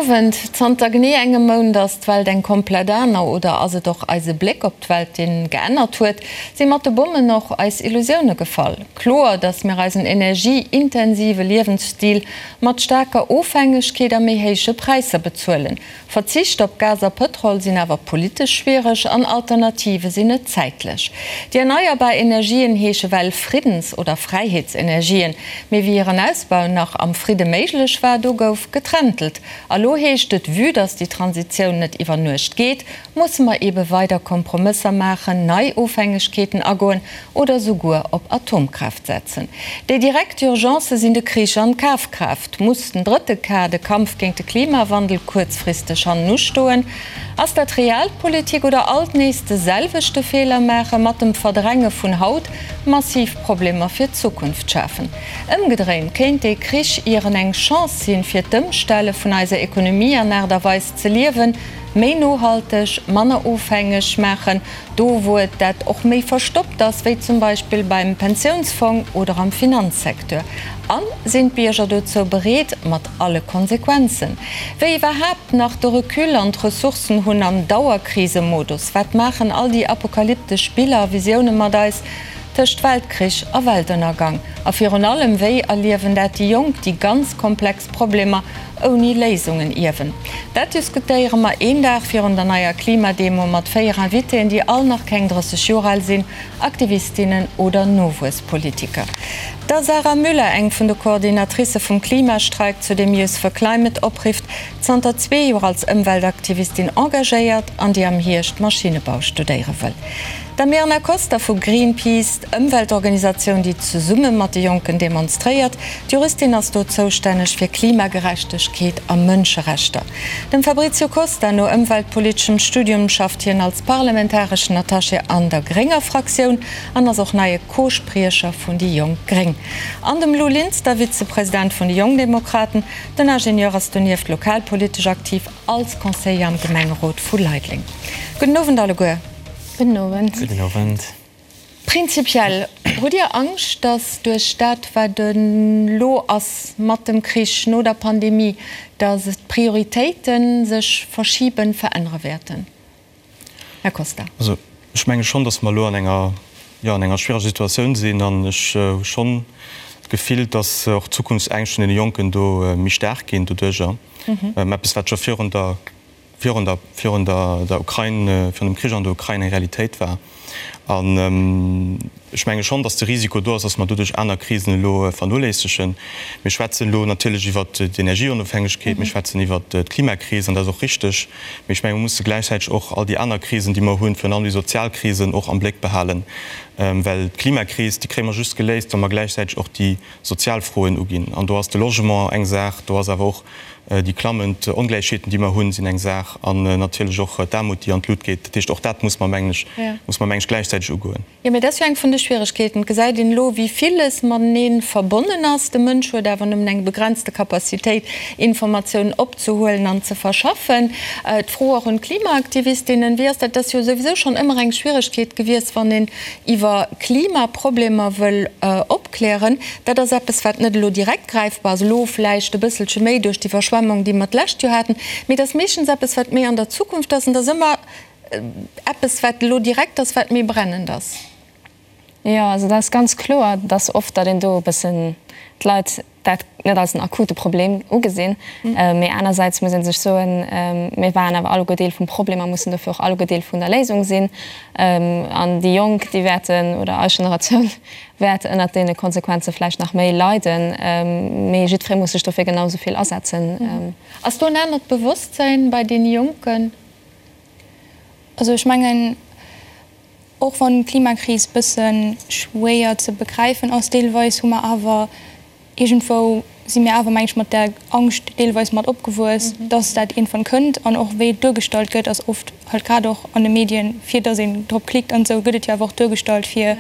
Owend. Zanter genee engem Mount ass d'Welt eng komplett aner. Oder ass et och eise Bléck op d'Welt, deen geännert huet? Si mat de Bommen och eis Illusioune gefall? Kloer, datt mir eisen energieintensive Liewensstil mat staarker Ofhängegkeet a méi héije Präisser bezuelen. Verzicht op Gas a Pëtrol sinn awer politesch schwiereg an Alternative sinn net zäitlech. Déi erneierbar Energien heesche well Friddens oder Fräiheetsenergien, mee wéi hiren Ausbau nach am Fridde méiglech war, do gouf getrentelt. A lo heescht et, vue dass déi Transitioun net iwwer Nuecht geet, musse mer eebe weider Kompromësser maachen, nei Ofhängegkeeten agoen oder souguer op Atomkraaft setzen. Déi direkt Urgencë sinn de Krich an d'Kafkraaft. Muss den drëtte K, de Kampf géint de Klimawandel, kuerzfristeg hannen ustoen? Ass dat Realpolitik oder alt nees de selwechte Feeler maache mat dem Verdränge vun haut massiv Problemer fir d'Zukunft schafen? Ëmgedréint kéint dee Krich ieren eng Chance sinn, fir d'Ëmstelle vun eiser Ekonomie an Aart a Weis ze liewen, méi nohalteg, manner ofhängeg maachen, do wou et dat och méi verstoppt ass, wéi zum Beispill beim Pensiounsfong oder am Finanzsecteur. A sinn d'Bierger dozou bereet, mat alle Konsequenzen? Wéi iwwerhaapt nach de Recul an d'Ressourcen hunn am Dauerkrisemodus? Wat maachen all déi apokalyptesch Biller a Visioune mat eis tëscht Weltkrich a Weltënnergang? A virun allem, wéi erliewen dat déi Jonk, déi ganz komplex Problemer ouni Léisungen ierwen. Dat diskutéiere mer een Dag virun der neier Klimademo mat 4 Invitéen, déi all nach keng 30 Joer al sinn, Aktivistinnen oder Nowuesspolitiker. Der Sarah Müller, eng vun de Coordinatricë vum Klimastreik, zu deem Youth for Climate oprifft, zanter zwee Joer als Ëmweltaktivistin engagéiert an déi am Hierscht Maschinnebau studéiere wëll. Der Mirna Koster vu Greenpeace, d'Ëmweltorganisatioun, déi zesumme mat de Jonken demonstréiert. D'Juristin ass do zoustänneg fir Klimagerechtegkeet a Mënscherechter. Dem Fabrizio Costa no ëmweltpoliteschem Studium schafft hien als parlamentareschen Attaché an der grénger Fraktioun an ass och neie Co-Spriecher vun déi Jonk Gréng. An dem Lou Linster, Vizepresident vun de Jongdemokraten. Den Ingenieur ass donieft lokalpolitesch aktiv als Conseiller am Gemengerot vu Leideleng. Gudden Owend alleguer. Gudden Owend. Gudden Owend. Prinzipiell, hutt Dir Angscht, datt duerch dat, wat elo ass mat dem Krich, no der Pandemie, datt d'Prioritéite sech verschiben, verännere wäerten? Här Costa. Also ech menge schonn, datt mer elo an enger, jo, an enger schwiereger Situatioun sinn an ech hu schonn d'Gefill, datt och d'Zukunftsängscht vun deene Jonken do méi staark ginn doduerjer. Eppes, wat scho virun der virun der, virun der, der Ukrain, virun dem Krich an der Ukrain eng Realitéit war. An ech menge schonn, datt de Risiko do ass, datt mer doduerch aner Krisen elo vernoléissegen. Mir schwätzen elo natierlech iwwert d'Energieonofhängegkeet, mir schwätzen iwwert d'Klimakris, an dat ass och richteg. Mee ech menge mer musse gläichzäiteg och all déi aner Krisen, déi mer hunn, virun allem déi sozial Krisen, och am Bléck behalen. Well d'Klimakris, déi kréie mer just geléist, wa mer gläichzäiteg och déi sozial Froen uginn. An do ass de Logement eng Saach, do ass awer och Déi klammend Ongläichheeten, déi mer hunn, sinn eng Saach an natierlech och d'Aarmut, déi an d'Lut geet. Dat heescht, och dat muss mer, mengen ech, muss mer, mengen ech, gläichzäiteg ugoen. Jo, mä dat ass jo eng vun de Schwieregkeeten. Et gesäit een elo, wéi villes matenee verbonnen ass. De Mënsch huet awer nëmmen eng begrenzte Capacitéit, Informatiounen opzehuelen an ze verschaffen. D'Fro och un d'Klimaaktivistinnen, Wéi ass dat? Dat ass jo souwisou schonn ëmmer eng Schwieregkeet gewiescht, wann een iwwer Klimaproblemer wëll opklären. Dat ass eppes, wat net elo direkt gräifbar ass, elo vläicht e bësselche méi duerch d'Iwwerschwemmung, déi mer d'lescht Joer haten, mee et ass meeschtens eppes, wat méi an der Zukunft ass. An et ass ëmmer eppes, wat elo direkt ass, wat méi brennend ass. Jo, also dat ass ganz kloer, dass oft, datt een do e bëssen d'Leit dat net als en akute Problem ugesinn. Mee anersäits muss ee sech soen, mir waren awer alleguer Deel vum Problem a mussen dofir och alleguer Deel vun der Léisung sinn. An déi Jonk, déi wäerten, oder eis Generatioun wäert ënnert deene Konsequenze vläicht nach méi leiden. Mee jiddweree muss sech dofir genau esou vill asetzen. Ass do en anert Bewosstsäin bei deene Jonken? Also ech mengen, Och wann d'Klimakris bësse schwéier ze begräifen ass deelweis, hu mer awer iergendwou, si mir awer meng ech mat där Angscht deelweis mat opgewuess, dass dat iergendwann kënnt. An och wéi et duergestallt gëtt, ass oft halt grad och an de Medien, fir dass een drop klickt an esou, gëtt et jo awer och duergestallt fir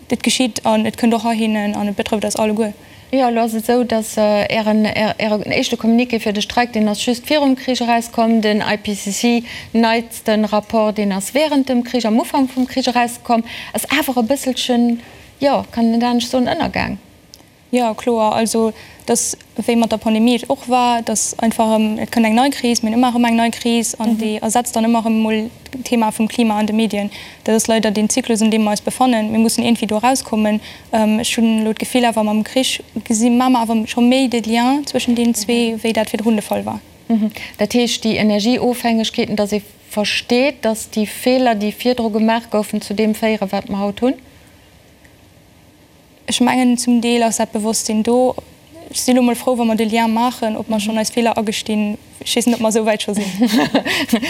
Et geschitt an et kënnt och heihinnen an et betrëfft eis alleguer. Jo, elo ass et esou, datt Ären, Ären éischte Communiqué fir de Streik, deen ass just virum Krich erauskomm. Den IPCC neitste Rapport, deen ass während dem Krich, am Ufank vum Krich erauskomm, ass awer e bësselchen, jo, kann een net anescht soen, ënnergaang. Jo, kloer. Also, dass, wéi mat der Pandemie et och war, dass einfach erëm, et kënnt eng nei Kris, mir hunn ëmmer erëm eng nei Kris an déi ersetzt dann ëmmer erëm emol d'Thema vum Klima an de Medien. Dat ass leider deen Zyklus, an deem mer eis befannen. Mir mussen iergendwéi do erauskommen. Ech hunn elo d'Gefill awer, mam Krich gesi maache mer awer scho méi de Lien zwëschen deenen zwee, wéi dat virdrun de Fall war. Dat heescht, déi Energieofhängegkeeten, dass ee versteet, dass déi Feeler, déi virdru gemaach goufen, zu deem féieren, wat mer haut hunn? Ech mengen, zum Deel ass dat Bewosstsinn do. Ech sinn elo mol frou, wa mer de Lien maachen. Ob mer schonn eis Feeler agestinn, ech weess net, ob mer esou wäit scho sinn.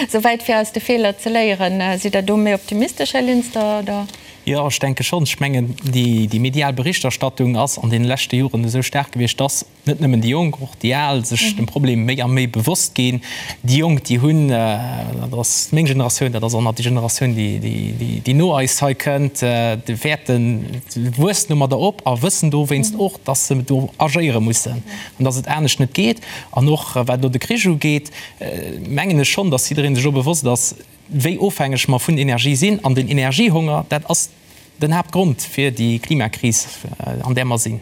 Esou wäit, fir aus de Feeler ze léieren. Sidd Der do méi optimistesch, Här Linster, oder? Jo, ech denke schonn. Ech mengen, déi medial Berichterstattung ass an deene leschte Joren esou staark gewiescht, dass net nëmmen déi Jonk, och déi Al sech dem Problem méi a méi bewosst ginn. Déi Jonk, déi hunn, dat ass meng Generatioun, dat ass och nach déi Generatioun, déi no eis hei kënnt, déi wäerten, wuessen domadder op a wëssen dowéinst och, dass se do agéiere mussen an dass et anescht net geet. An och wat elo de Krich ugeet, mengen ech schonn, dass jidderee sech och bewosst ass, wéi ofhängeg mer vun Energie sinn. An den Energiehonger, dat ass den Haaptgrond fir déi Klimakris, an där mer sinn.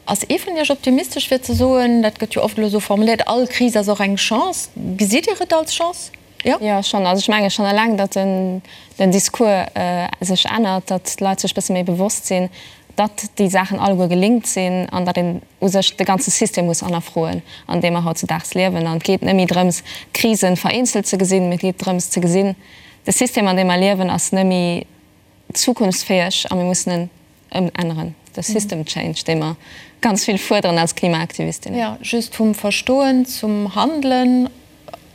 Ass ee vun Iech optimistesch fir ze soen, dat gëtt jo oft elo esou formuléiert, all Kris ass och eng Chance. Gesitt Dir et als Chance? Jo? Jo, schonn. Also ech menge schonn eleng, datt den Discours sech ännert, datt d'Leit sech e bësse méi bewosst sinn, datt déi Saachen alleguer gelinkt sinn an datt een u sech de ganze System muss hannerfroen, an deem mer hautzedaags liewen. An et geet net méi drëms, d'Krisen vereenzelt ze gesinn, mee et geet drëms ze gesinn, de System, an deem mer liewen, ass net méi zukunftsfäeg a mir mussen en ëmänneren, de System Change, dee mer ganz vill fuerderen als Klimaaktivistinnen. Jo, just vum Verstoen zum Handelen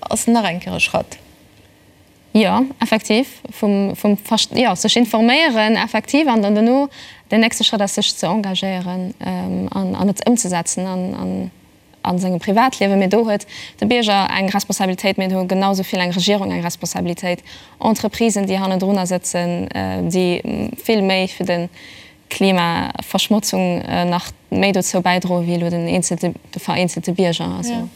ass nach eng Kéier e Schratt. Jo, effektiv, vum, vum Verst-, jo, sech informéieren effektiv an dann dono den nächste Schrëtt ass sech ze engagéieren an, an et ëmzesetzen an, an a sengem Privatliewen, mee do huet de Bierger eng Responsabilitéit, mee do hu genau esou vill eng Regierung eng Responsabilitéit, Entreprisen, déi hannendrunner sëtzen, déi vill méi fir de Klimaverschmotzung nach méi dozou bäidroen, wéi elo den eenzelte, de vereenzelte Bierger. Also.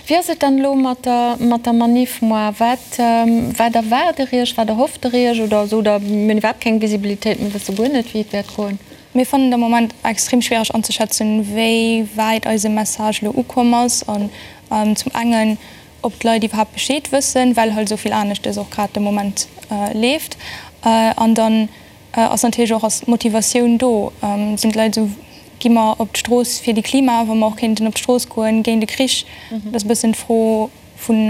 Wéi ass et dann elo mat der, mat der Manif moar? Wat, wat erwaart Der Iech, wat erhofft Der Iech oder sot Der, mir hunn iwwerhaapt keng Visibilitéit, mir wësse guer net, wéi et wäert goen? Mir fannen et am Moment extrem schwiereg anzeschätzen, wéi wäit eise Message elo ukomm ass an zum engen, ob d'Leit iwwerhaapt Bescheed wëssen, well halt esou vill aneschtes och grad de Moment leeft. An dann ass natierlech och, ass d'Motivatioun do? Sinn d'Leit esou, gi mer op d'Strooss fir de Klima, wa mer och kéinten op d'Strooss goen géint de Krich? Dat ass e bëssen d'Fro. Vun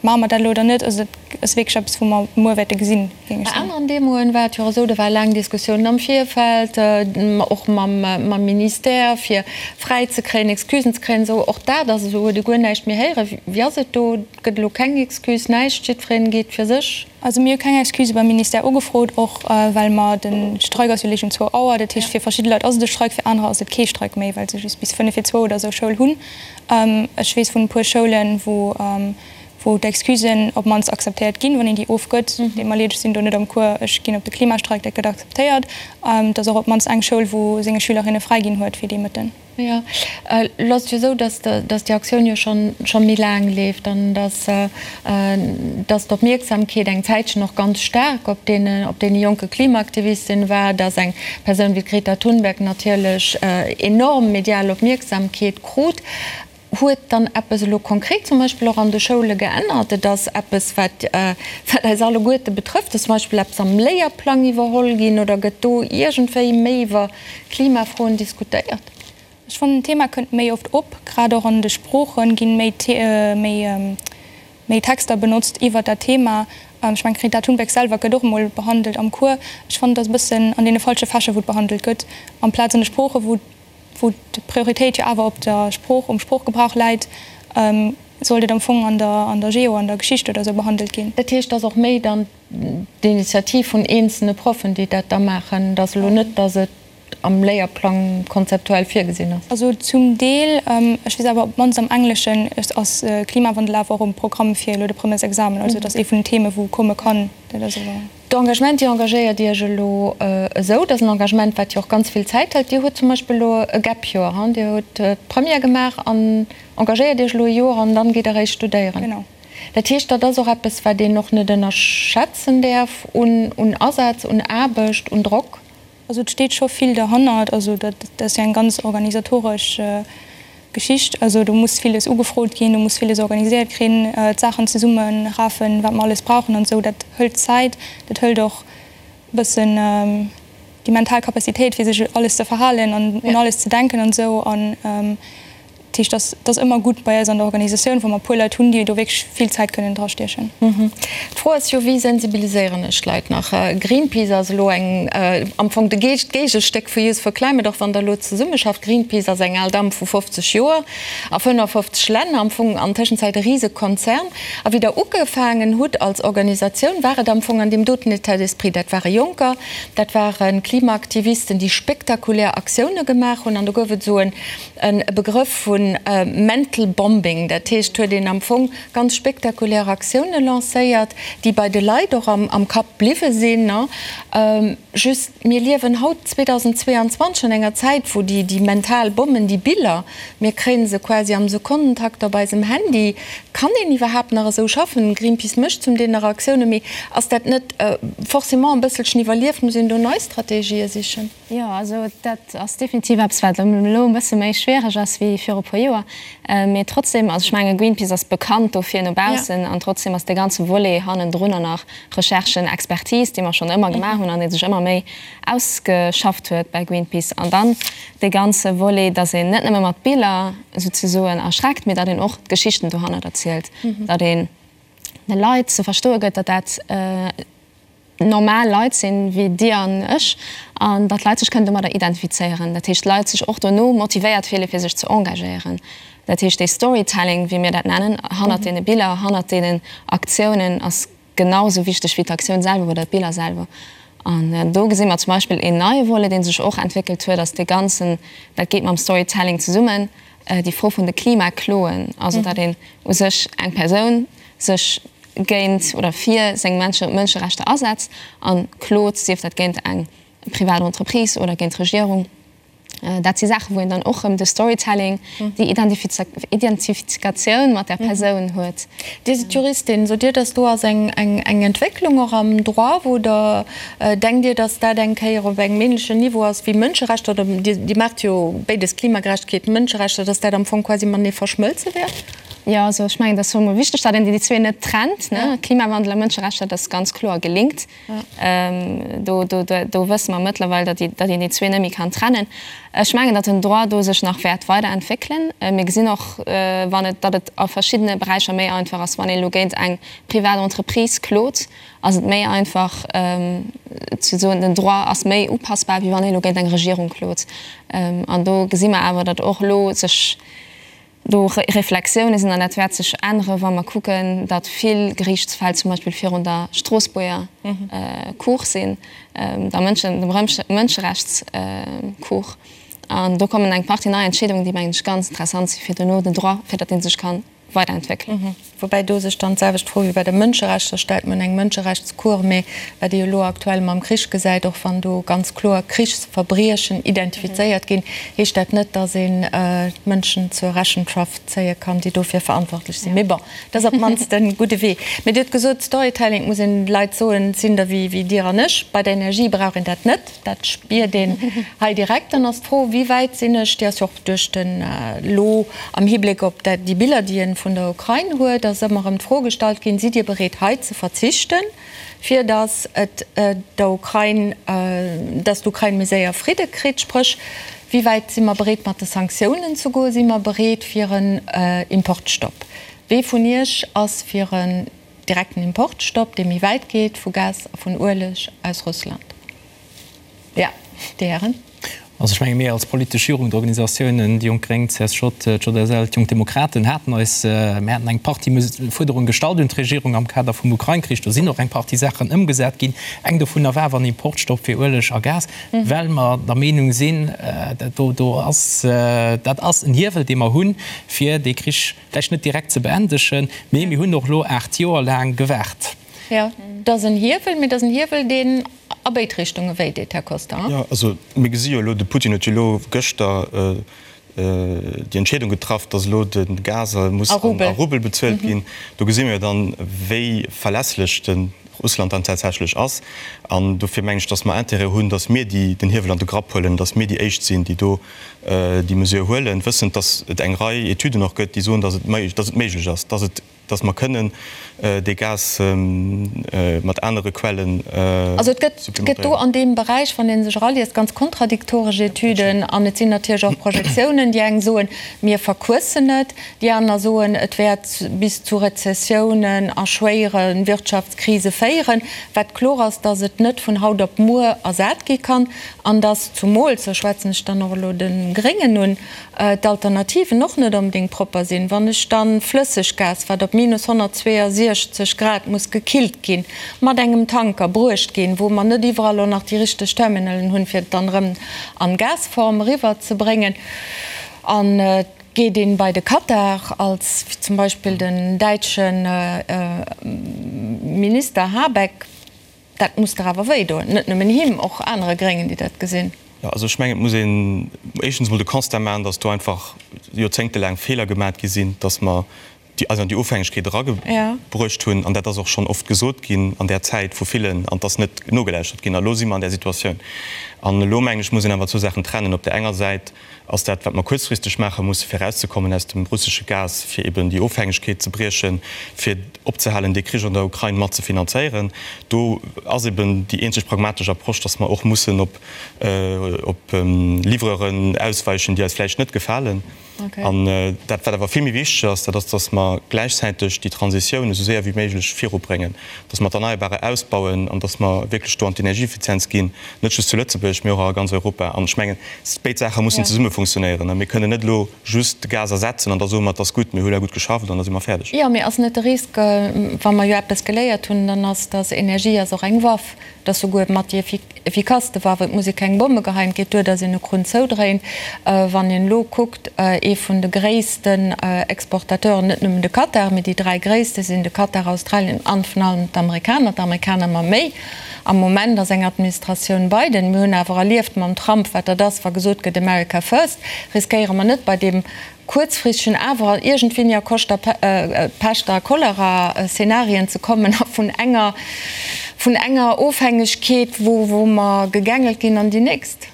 maache mer dat elo oder net, also dat ass wierklech eppes, wou mer muer wäerte gesinn, géing ech soen. Bei aneren Demoen war et jo och esou, do ware laang Diskussiounen am Virfeld, och mam Ministère, fir fräi ze kréien, Excusen ze kréien esou. Och dat ass esou, huet ee guer näischt méi héieren. Wéi ass et do? Gëtt elo keng Excuse, näischt, jiddwereen geet fir sech? Also mir hu keng Excuse beim Ministère ugefrot, och well mer, de Streik ass jo léich um zwou Auer, dat heescht fir verschidde Leit ass et e Streik, fir anerer ass et kee Streik méi, well se just bis fënnef vir zwou oder esou Schoul hunn. Ech weess vun e puer Schoulen, wou wou d'Excusen op d'mannst akzeptéiert ginn, wann een déi ofgëtt. Deet mer leed, ech sinn do net am Cours, ech ginn op de Klimastreik, dat gëtt akzeptéiert. Et ass och op d'mannst eng Schoul, wou senge Schülerinne fräi ginn huet fir dee Mëtten. Jo, elo ass et jo esou, datt datt déi Aktioun jo schonn scho méi laang leeft an datt datt d'Opmierksamkeet eng Zäitchen och ganz staark op deene op deene jonke Klimaaktivistinnen war, datt eng Persoun wéi d'Greta Thunberg natierlech enorm medial Opmierksamkeet krut. Huet dann eppes elo konkret zum Beispill och an de Schoule geännert? Et ass eppes, wat wat eis alleguerte betrëfft. Ass zum Beispill eppes am Léierplang iwwerholl ginn oder gëtt do iergendwéi méi iwwer Klimafroen diskutéiert? Ech fannen, d'Thema kënnt méi oft op. Grad och an de Sprooche ginn méi méi méi Texter benotzt iwwer dat Thema. Ech mengen, d'Greta Thunberg selwer gëtt och emol behandelt am Cours. Ech fannen, et ass e bëssen an deene falsche Fächer, wou et behandelt gëtt, amplaz an de Sproochen, wou wou d'Prioritéit jo awer op der Sprooch, um Sproochgebrauch läit, sollt et am Fong an der, an der Geo, an der Geschicht oder esou behandelt ginn. Dat heescht, et ass och méi dann d'Initiativ vun eenzelne Proffen, déi dat da maachen. Et ass elo net, datt et am Léierplang konzeptuell virgesinn ass. Also zum Deel. Ech weess awer, op d'mannst am Engleschen ass Klimawandel awer och um Programm fir elo de Premièresexamen. Also et ass ee vun den Theme wou komme kann. Dat ass awer. D'Engagement, Dir engagéiert Iech elo esou, dat ass en Engagement, wat jo och ganz vill Zäit hëlt. Dir hutt zum Beispill elo e Gap-Joer, hu? Dir hutt d'Première gemaach an engagéiert Iech elo e Joer an dann geet Der eréischt studéieren. Genau. Dat heescht, dat ass och eppes, wat een och net ënnerschätzen däerf un Asaz, un Aarbecht, un Drock. Also et steet scho vill derhannert. Also dat ass jo eng ganz organisatoresch Geschicht. Also do muss villes ugefrot ginn, do muss villes organiséiert krin, d'Saachen zesummerafen, wat mer alles brauchen an esou. Dat hëlt Zäit, dat hëlt och e bëssen déi mental Capacitéit, fir sech alles ze verhalen an un alles ze denken an esou. An Dat heescht, dat ass ëmmer gutt bei eis an der Organisatioun, wa mer e puer Leit hunn, déi do wierklech vill Zäit kënnen drastiechen. D'Fro ass jo, Wéi sensibiliséieren ech d'Leit nach? Greenpeace ass elo eng, am Fong de d'Géigestéck vu Youth for Climate, och wann Der elo zesummeschafft. Greenpeace ass eng al Damm vu 50 Joer a 55 Länner, am Fong an Tëschenzäit e Risekonzern. A wéi Der ugefaangen hutt als Organisatioun, war et am Fong an deem doten État d'esprit. Dat ware Jonker, dat ware Klimaaktivisten, déi spektakulär Aktioune gemaach hunn. An do gouf et esou en E Begrëff vu mental bombing, dat heescht, huet een am Fong ganz spektakulär Aktioune lancéiert, déi bei de Leit och am Kapp bliwwe sinn. Just, mir liewen haut 2022 an enger Zäit, wou déi mental Bommen, déi Biller, mir kréie se quasi am Sekonnentakt op eisem Handy. Kann een iwwerhaapt nach esou schaffen? Greenpeace mécht zum Deel nach Aktioune, mee ass dat net forcément e bësselchen iwwerlieft? Muss een do nei Strategië sichen? Jo, also dat ass definitiv eppes, wat elo e bësse méi schwiereg ass wéi viru e puer Joer. Mee trotzdem, also ech menge Greenpeace ass bekannt dofir no baussen an trotzdem ass dee ganze Volet hannendrunner nach Recherchen, Expertise, déi mer schonn ëmmer gemaach hunn an dee sech ëmmer méi ausgeschafft huet bei Greenpeace. An dann dee ganze Volet, datt een net nëmme mat Biller souzesoen erschreckt, mee datt een och d'Geschichten dohannert erzielt, datt een de Leit ze verstoe gëtt, datt dat, normal Leit sinn, wéi Dir an ech, an datt d'Leit sech kënnen domadder identifizéieren. Dat heescht, d'Leit sech och dono motivéiert fillen, fir sech ze engagéieren. Dat heescht, dee Storytelling, wéi mir dat nennen, hannert deene Biller, hannert deenen Aktiounen ass genau esou wichteg wéi d'Aktioun selwer oder d'Biller selwer. An do gesi mer zum Beispill een neie Volet, dee sech och entwéckelt huet, ass dee ganzen, dat geet mam Storytelling zesummen, déi Fro vun de Klimakloen, also datt een u sech eng Persoun sech géint oder fir seng Mënscherechter asetzt a klot, sief dat géint eng privat Entreprise oder géint d'Regierung. Dat si Saachen, wou een dann och erëm de Storytelling, déi Identifikatioun mat där Persoun huet. Dir sidd Juristin. Sot Dir, datt do ass eng Entwécklung och am Droit, wou Der denkt Dir, datt dat eng Kéier op engem ähnlechen Niveau ass wéi Mënscherechter, oder Dir maacht jo béides, Klimagerechtegkeet, Mënscherechter, datt dat am Fong quasi matenee verschmëlze wäert? Jo, also ech mengen, et ass emol wichteg, datt een déi zwee net trennt, ne? Klimawandel a Mënscherechter, dat ass ganz kloer gelinkt. Do, do, do wësse mer mëttlerweil, datt déi, datt een déi zwee net méi kann trennen. Ech mengen, datt den Droit do sech nach wäert weiderentwéckelen. Mir gesinn och, wann et, datt et a verschiddene Beräicher méi einfach ass, wann een elo géint eng privat Entreprise klot, ass et méi einfach ze soen, den Droit ass méi upassbar, wéi wann een elo géint eng Regierung klot. An do gesi mer awer, datt och elo sech do Reflexioune sinn an dat wäert sech ännere wa mer kucken, datt vill Geriichtsfäll zum Beispill virun der Stroossbuerger Cour sinn, der Mënschen, dem Mënscherechtscour. An do kommen eng Partie nei Entscheedungen, déi mengen ech ganz interessant si fir dono den Droit, fir datt dee sech ka weiderentwéckelen. Woubäi do sech dann d'selwecht Fro wéi bei de Mënscherechter stellt. Mir hunn eng Mënscherechtscour, mee wat ee jo elo aktuell mam Krich gesäit, och wann do ganz kloer Krichsverbriechen identifizéiert ginn, heescht dat net, datt een d'Mënschen zur Rechenschaft zéie kann, déi dofir verantwortlech sinn. Mee bon, dat ass op d'mannst e gudde Wee. Mee Dir hutt gesot, Storytelling, et muss een de Leit soen, et sinn der wéi Dir an ech. Bei der Energie brauch een dat net. Dat spiert een hei direkt. Dann ass d'Fro, Wéi wäit sinn ech, déi ass jo och duerch den, elo am Hibléck op dat, déi Biller, déi ee vun der Ukrain huet, ass ëmmer erëm d'Fro gestallt ginn, Sidd Dir bereet hei ze verzichten, fir datt et der Ukrain, datt d'Ukrain méi séier Fridde kritt? Spréch, wéi wäit si mer bereet mat de Sanktiounen ze goen? Si mer bereet fir en Importstopp? Wee vun Iech ass fir en Direkten Importstopp, dee méi wäit geet, vu Gas a vun Ueleg aus Russland. Jo, déi Hären. Also ech menge mir als politesch Jugendorganisatiounen, déi Jonk Gréng, CSJ, d'JSL, d'Jonk Demokraten, haten eis, mir haten eng Partie Fuerderunge gestallt un d'Regierung am Kader vum Ukrain-Krich. Do sinn och eng Partie Saachen ëmgesat ginn. Eng dovunner war awer en Importstopp fir Ueleg a Gas, well mer der Meenung sinn, do do ass, dat ass en Hiewel, dee mer hunn, fir dee Krich, Vläicht net direkt ze beendegen, mee mir hunn och elo 8 Joer laang gewaart. Jo, et ass en Hiewel, mee et ass en Hiewel, deen a béid Richtunge wéi deet, Här Costa. Jo, also mir gesi jo elo, de Putin huet jo elo gëschter déi Entscheedung getraff, datt elo de Gas muss a Rubel bezuelt ginn. Do gesi mir jo dann, wéi verlässlech de. Russland dann tatsächlech ass. An dofir mengen ech, datt mer Intérêt hunn, datt mir déi den Hiewel an de Grapp huelen, datt mir déi Éischt sinn, déi do déi Mesure huelen, wëssend, datt et eng Rei Etüden och gëtt, déi soen, datt et méiglech ass, datt et, datt mer kënnen dee Gas mat anere Quellen Also et gëtt, gëtt do an deem Beräich, wann ee sech eraliest, ganz kontradiktoresch Etüden an et sinn natierlech och Projektiounen. Déi eng soen, mir verquëssen et, déi aner soen, et wäert bis zu Rezessiounen a schwéiere Wirtschaftskrise féieren. Wat kloer ass, datt et net vun haut op muer ersat gi kann an datt zumools, do schwätzen ech dann och elo de Gréngen un, d'Alternativen och net onbedéngt propper sinn. Wann ech dann Flësseggas, wat op minus 162 Grad muss gekillt ginn, mat engem Tanker bruecht ginn, wou mer net iwwerall och nach déi richteg Terminalen hunn, fir et dann erëm an Gasform eriwwer ze bréngen, an et geet een bei de Katar, als zum Beispill den däitsche Minister Habeck, Dat muss der awer wéi doen, net nëmmen him, och anere Gréngen, déi dat gesinn. Jo, also ech mengen, et muss een éischtens emol de Constat maachen, datt do einfach joerzéngtelaang Feeler gemat gi sinn, datt mer déi eis an déi Ofhängegkeet eragebruecht hunn. An dat ass och schonn oft gesot ginn an där Zäit vu villen, an et ass net nogelauschtert ginn. A elo si mer an där Situatioun. An elo, mengen ech, muss een awer zwou Saachen trennen. Op där enger Säit ass dat, wat mer kuerzfristeg maache musse fir erauszekommen aus dem russesche Gas, fir eben déi Ofhängegkeet ze briechen, fir opzehalen, dee Krich an der Ukrain mat ze finanzéieren. Do ass eben déi eenzeg pragmatesch Approche, dass mer och mussen op op Livreuren ausweichen, déi eis vläicht net gefalen. An dat, wat awer vill méi wichteg ass, dat ass, dass mer gläichzäiteg déi Transitioun esou séier wéi méiglech virubréngen, dass mer d'Erneierbare ausbauen an dass mer wierklech do an d'Energieeffizienz ginn, net just zu Lëtzebuerg, mee och a ganz Europa. An ech mengen, béid Saache mussen zesumme funktionéieren. Mir kënnen net elo just de Gas ersetzen an da soe mer, et ass gutt, mir hu elo gutt geschafft an da si mer fäerdeg. Jo, mee ass net de Risk, wa mer jo eppes geléiert hunn, dann ass, dass Energie ass och eng Waff, et ass souguer mat déi effikasste Waff, et muss ee keng Bomme geheien, et geet duer, dass een e Krunn zoudréint. Wann een elo kuckt, ee vun de gréissten Exportateuren, net nëmmen de Katar, mee déi 3 gréisste sinn de Katar, Australien an vun allem d'Amerikaner, d'Amerikaner ëmmer méi, Am Moment ass eng Administratioun Biden. Mir hunn awer erlieft mam Trump, wat dat ass, wa gesot gëtt America first. Riskéiere mer net bei deem kuerzfristegen awer iergendwéini a Koscht a Pescht a Cholera-Szenarien ze kommen a vun enger vun enger Ofhängegkeet, wou mer gegängelt ginn, an déi nächst?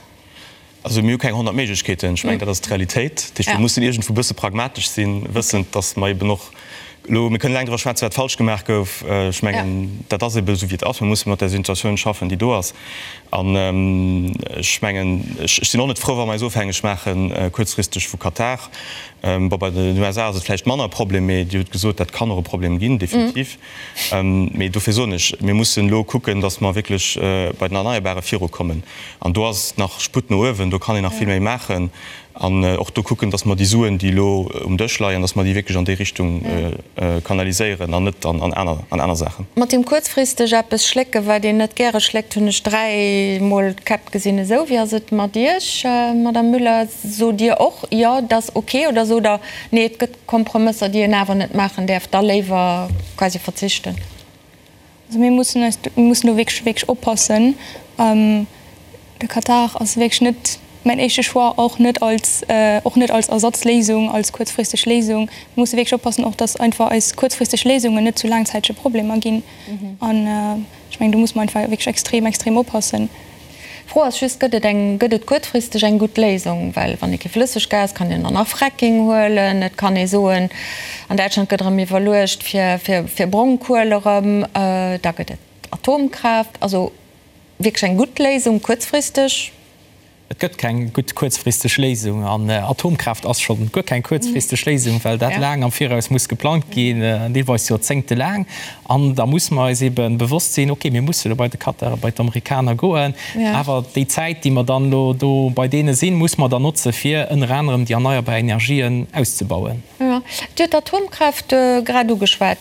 Also mir hu keng 100 Méiglechkeeten. Ech mengen, dat ass d'Realitéit. Dat heescht, mir mussen iergendwou e bësse pragmatesch sinn, wëssend, datt mer eben och elo, mir kënnen laang driwwer schwätzen, wat falsch gemaach gouf. Ech mengen, dat ass eben esou, wéi et ass. Mir musse mat där Situatioun schaffen, déi do ass. An ech mengen, ech sinn och net frou, wa mer eis ofhängeg maache kuerzfristeg vu Katar. Bon, bei den USA ass et vläicht manner e Problem, mee Dir hutt gesot, dat kann och e Problem ginn, definitiv. Mee dofir soen ech, mir mussen elo kucken, datt mer wierklech bei den Erneierbare virukommen. An do ass nach Sputt no uewen, do kann een nach vill méi maachen. An och do kucken, datt mer déi Suen, déi elo um Dësch leien, datt mer déi wierklech an déi Richtung kanaliséieren an net an aner Saachen. Mat deem kuerzfristeg eppes schlécken, wat een net gäre schléckt, hunn ech dräimol d'Käpp gesinn. Esou, wéi ass et mat Iech, Madame Müller? Sot Dir och, jo, et ass ok, oder sot Der, nee, et gëtt Kompromësser, déi een awer net maachen däerf, da léiwer quasi verzichten? Also mir mussen eis, mir mussen do wierklech, wierklech oppassen. De Katar ass wierklech net mäin éischte Choix, och net als, och net als Ersatzléisung, als kuerzfristeg Léisung. Mir musse wierklech oppassen och, datt einfach eis kuerzfristeg Léisungen net zu laangzäitege Problemer ginn. An ech mengen, do muss mer einfach wierklech extrem, extrem oppassen. D'Fro ass just, Gëtt et eng, gëtt et kuerzfristeg eng gutt Léisung? Well wann ee kee Flësseggas, kann een dann nach Fracking huelen. Et kann ee soen, an Däitschland gëtt erëm iwwerluecht fir, fir, fir Brongkuel erëm. Da gëtt et Atomkraaft. Also wierklech eng gutt Léisung kuerzfristeg? Et gëtt keng gutt kuerzfristeg Léisung. An Atomkraaft ass scho guer keng kuerzfristeg Léisung, well dat laang am Viraus muss geplangt ginn, deelweis joerzéngtelaang. An da musse mer eis ebe bewosst sinn, okay, mir musse elo bei de Katar a bei d'Amerikaner goen, awer déi Zäit, déi mer dann elo do bei deene sinn, musse mer dann notze fir ënner anerem déi erneierbar Energien auszebauen. Jo, Dir hutt d'Atomkraaft grad ugeschwat.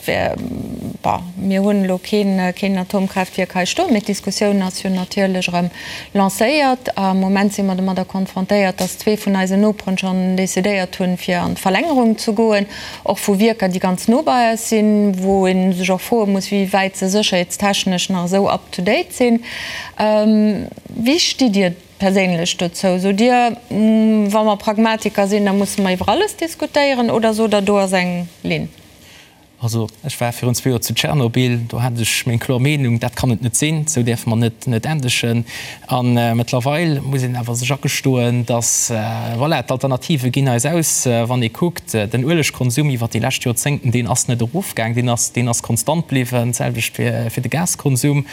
Bon, mir hunn elo keen, keen Atomkraaftwierk hei stoen, mee d'Diskussioun ass jo natierlech erëm lancéiert. Am Moment si mer domadder konfrontéiert, dass zwee vun eisen Noperen schonn decidéiert hunn, fir an d'Verlängerung ze goen, och vu Wierker, déi ganz no bei eis sinn, wou ee sech och froe muss, wéi wäit se sécherheetstechnesch nach esou up to date sinn. Wéi stitt Dir Perséinlech dozou? Sot Dir, wa mer Pragmatiker sinn, da musse mer iwwer alles diskutéieren, oder sot Der, do ass eng Linn? Also ech war virun zwee Joer zu Tschernobyl, do hat ech meng kloer Meenung, dat kann et net sinn, esou däerfe mer net net endegen. A mëttlerweil muss een awer sech agestoen, datt, voilà, d'Alternative ginn eis aus. Wann ee kuckt, den Uelegkonsum iwwer déi lescht Joerzéngten, deen ass net erofgaang, deen ass deen ass konstant bliwwen, d'selwecht fir fir de Gaskonsum.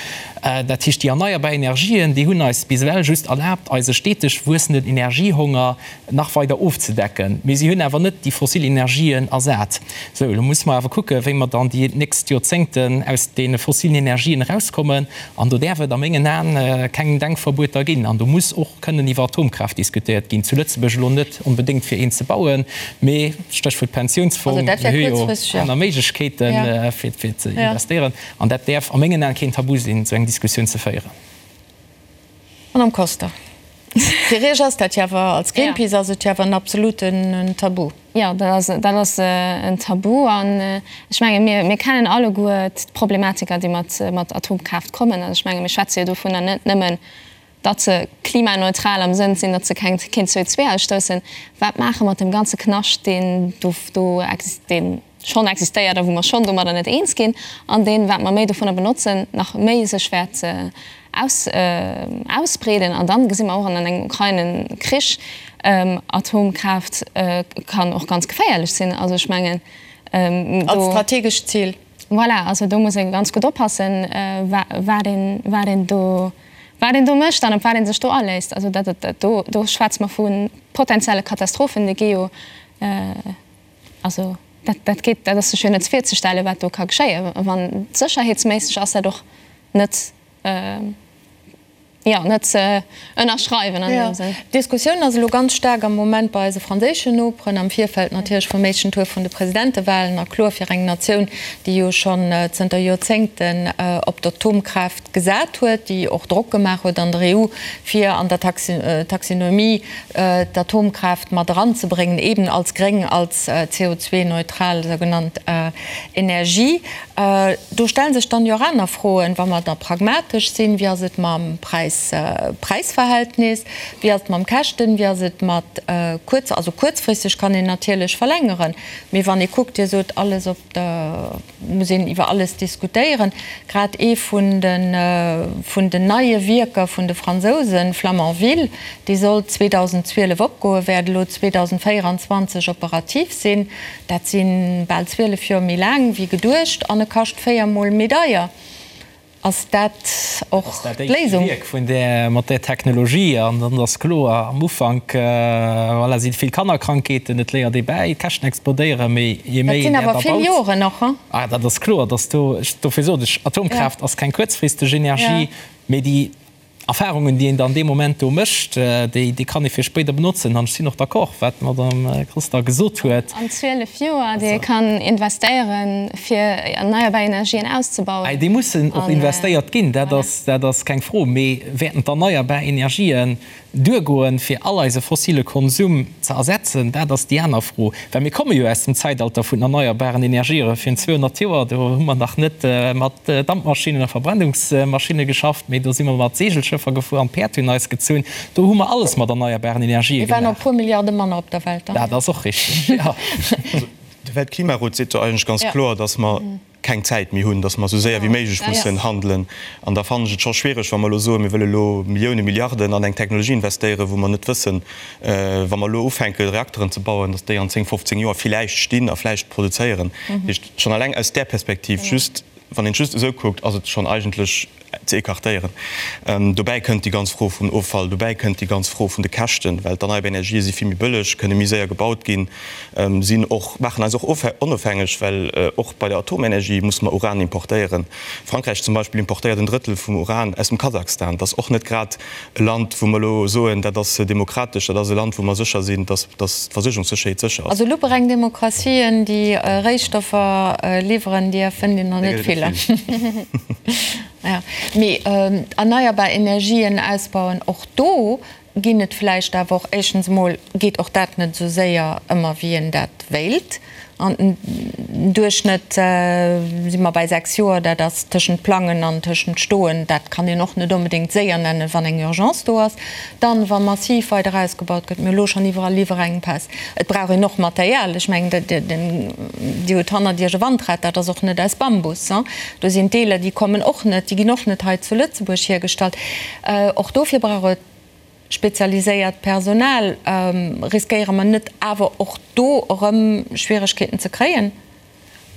Dat heescht, déi erneierbar Energien, déi hunn eis bis ewell just erlaabt, eise steteg wuessenden Energiehonger nach weider ofzedecken, mee si hunn awer net déi fossil Energien ersat. Sou, elo musse mer awer kucken, wéi mer dann déi nächst Joerzéngten aus deene fossilen Energien erauskommen. An do däerf et a mengen Aen keng Denkverbueter ginn. An do muss och kënnen iwwer Atomkraaft diskutéiert ginn. Zu Lëtzebuerg elo net onbedéngt fir een ze bauen, mee, Stéchwuert Pensiounsfong, mir hu jo aner Méiglechkeeten, fir ze investéieren. An dat däerf a mengen Aen keen Tabu sinn, esou eng Diskussioun ze féieren. Madame Koster, fir Iech ass dat jo awer, als Greenpeace ass et jo awer en absoluten Tabu. Jo, dat ass, dat ass en Tabu. An ech menge mir, mir kennen alleguer d'Problematiker, déi mat, mat Atomkraaft kommen. Also ech menge mir schwätze jo dovunner net nëmmen, datt se klimaneutral am Sënn sinn, datt se keng, keen CO2-ausstoussen. Wat maache mat deem ganze Knascht, deen do, do deen schonn existéiert a wou mer schonn domadder net eens ginn, an deen, wat mer méi dovunner benotzen, nach méi sech wäert aus, ausbreeden. An dann gesi mer och an engem Ukraine-Krich, Atomkraaft kann och ganz geféierlech sinn. Also ech mengen, do. Als strategescht Zil. Voilà, also do muss ee ganz gutt oppassen, wat een, wat een do, wat een do mécht an op wat ee sech do aléisst. Also dat, dat, do, do schwätze mer vu potenzielle Katastrophen, déi gi jo, Also dat, dat geet, dat ass sech jo net virzestellen, wat do ka geschéien. Wann sécherheetsméisseg ass dat och net, jo, net ze ënnerschreiwen an deem Sënn. D'Diskussioun ass elo ganz staark am Moment bei eise franséischen Noperen, am Virfeld natierlech vum éischten Tour vun de Presidentewahlen. A kloer fir eng Natioun, déi jo schonn zënter Joerzéngten op d'Atomkraaft gesat huet, déi och Drock gemaach huet an der EU, fir an der Taxinomie d'Atomkraaft mat eranzebréngen, eben als gréng, als CO2-neutral sougenannt Energie. Do stelle sech dann jo och aner Froen, wa mer da pragmatesch sinn, Wéi ass et mam Präis-Verhältnis? Wéi ass et mam Käschten? Wéi ass et mat kuerz, also kuerzfristeg kann een natierlech verlängeren, mee wann ee kuckt, Dir sot alles op der, muss een iwwer alles diskutéieren. Grad ee vun de vun den neie Wierker vun de Fransousen, Flamanville, dee sollt 2012 opgoen, wäert elo 2024 operativ sinn. Dat si bal 12 Joer méi laang wéi geduecht an e kascht véiermol méi deier. Ass dat och Ass dat éischte d'Léisung? Wierk vun där, mat där Technologie. An dann ass kloer, am Ufank, voilà, si vill Kannerkrankheeten, et léiert ee bäi, d'Käschten explodéieren, mee je Dat méi sinn een awer dat vill erbaut. Joren och, hein? Ah, dat ass kloer, dass do, dofir sot ech, Atomkraaft ass keng kuerzfristeg Energie, mee déi Erfahrungen, déi een dann dee Moment do mécht, déi, déi kann ee fir spéider benotzen. An ech sinn och d'accord, wat d'Madame Koster gesot huet. An 12 Joer, déi ee kann investéieren, fir erneierbar Energien auszebauen. Déi mussen och investéiert ginn, dat ass, dat ass keng Fro. Mee wäerten d'erneierbar Energien duergoen, fir all eise fossile Konsum ze ersetzen? Dat ass déi aner Fro. Well mir komme jo aus dem Zäitalter vun erneierbaren Energiere virun 200 Joer. Do hu mer nach net mat Dampmaschinnen a Verbrennungsmaschinne geschafft, mee do si mer mat Seegelschëffer gefuer an d'Päerd hunn eis gezunn. Do hu mer alles mat erneierbaren Energië Mir waren gemaach. och e puer Milliarde manner op der Welt dann. Dat ass och richteg, jo. De Weltklimarot seet jo eigentlech ganz kloer, datt mer keng Zäit méi hunn, datt mer esou séier wéi méiglech mussen handelen. An da fannen ech et scho schwiereg, wa mer elo soen, mir wëlle elo Milliounen, Milliarden an eng Technologie investéieren, wou mer net wëssen, wa mer elo ufänke Reakteren ze bauen, datt déi an 10, 15 Joer villäicht stinn a vläicht produzéieren. Dat heescht, schonn eleng aus där Perspektiv, just wann een et just esou kuckt, ass et schonn eigentlech ze écartéieren. Dobäi kënnt déi ganz Fro vum Offall, dobäi kënnt déi ganz Fro vun de Käschten, well d'erneierbar Energië si vill méi bëlleg, kënne méi séier gebaut ginn, sinn och, maachen eis och onofhängeg, well och bei der Atomenergie musse mer Uran importéieren. Frankräich zum Beispill importéiert en Drëttel vum Uran aus dem Kasachstan. Dat ass och net grad e Land, wou mer elo soen, dat ass demokratesch, dat ass e Land, wou mer sécher sinn, dass d'Versuergungssécherheet sécher ass. Also lupereng Demokratien, déi Réistoffer liwweren, deeër fënnt een der net vill. Mee erneierbar Energien ausbauen, och do. Ginn et vläicht awer och, éischtens emol geet och dat net esou séier ëmmer wéi een dat wéilt. An den Duerchschnëtt si mer bei 6 Joer, dat ass tëschent Plangen an tëschent Stoen, dat kann een och net onbedéngt séier nennen, wann eng Urgence do ass. Dann, wa massiv weider ausgebaut gëtt, mir hu elo schonn iwwerall Liwwerengpäss, et brauch een och Material, ech mengen, Dir hutt hannert Iech e Wandrad, dat ass och net aus Bambus, do sinn Deeler, déi kommen och net, déi ginn och net hei zu Lëtzebuerg hiergestallt. Och dofir brauch et spezialiséiert Personal. Riskéiere mer net awer och do erëm Schwieregkeeten ze kréien?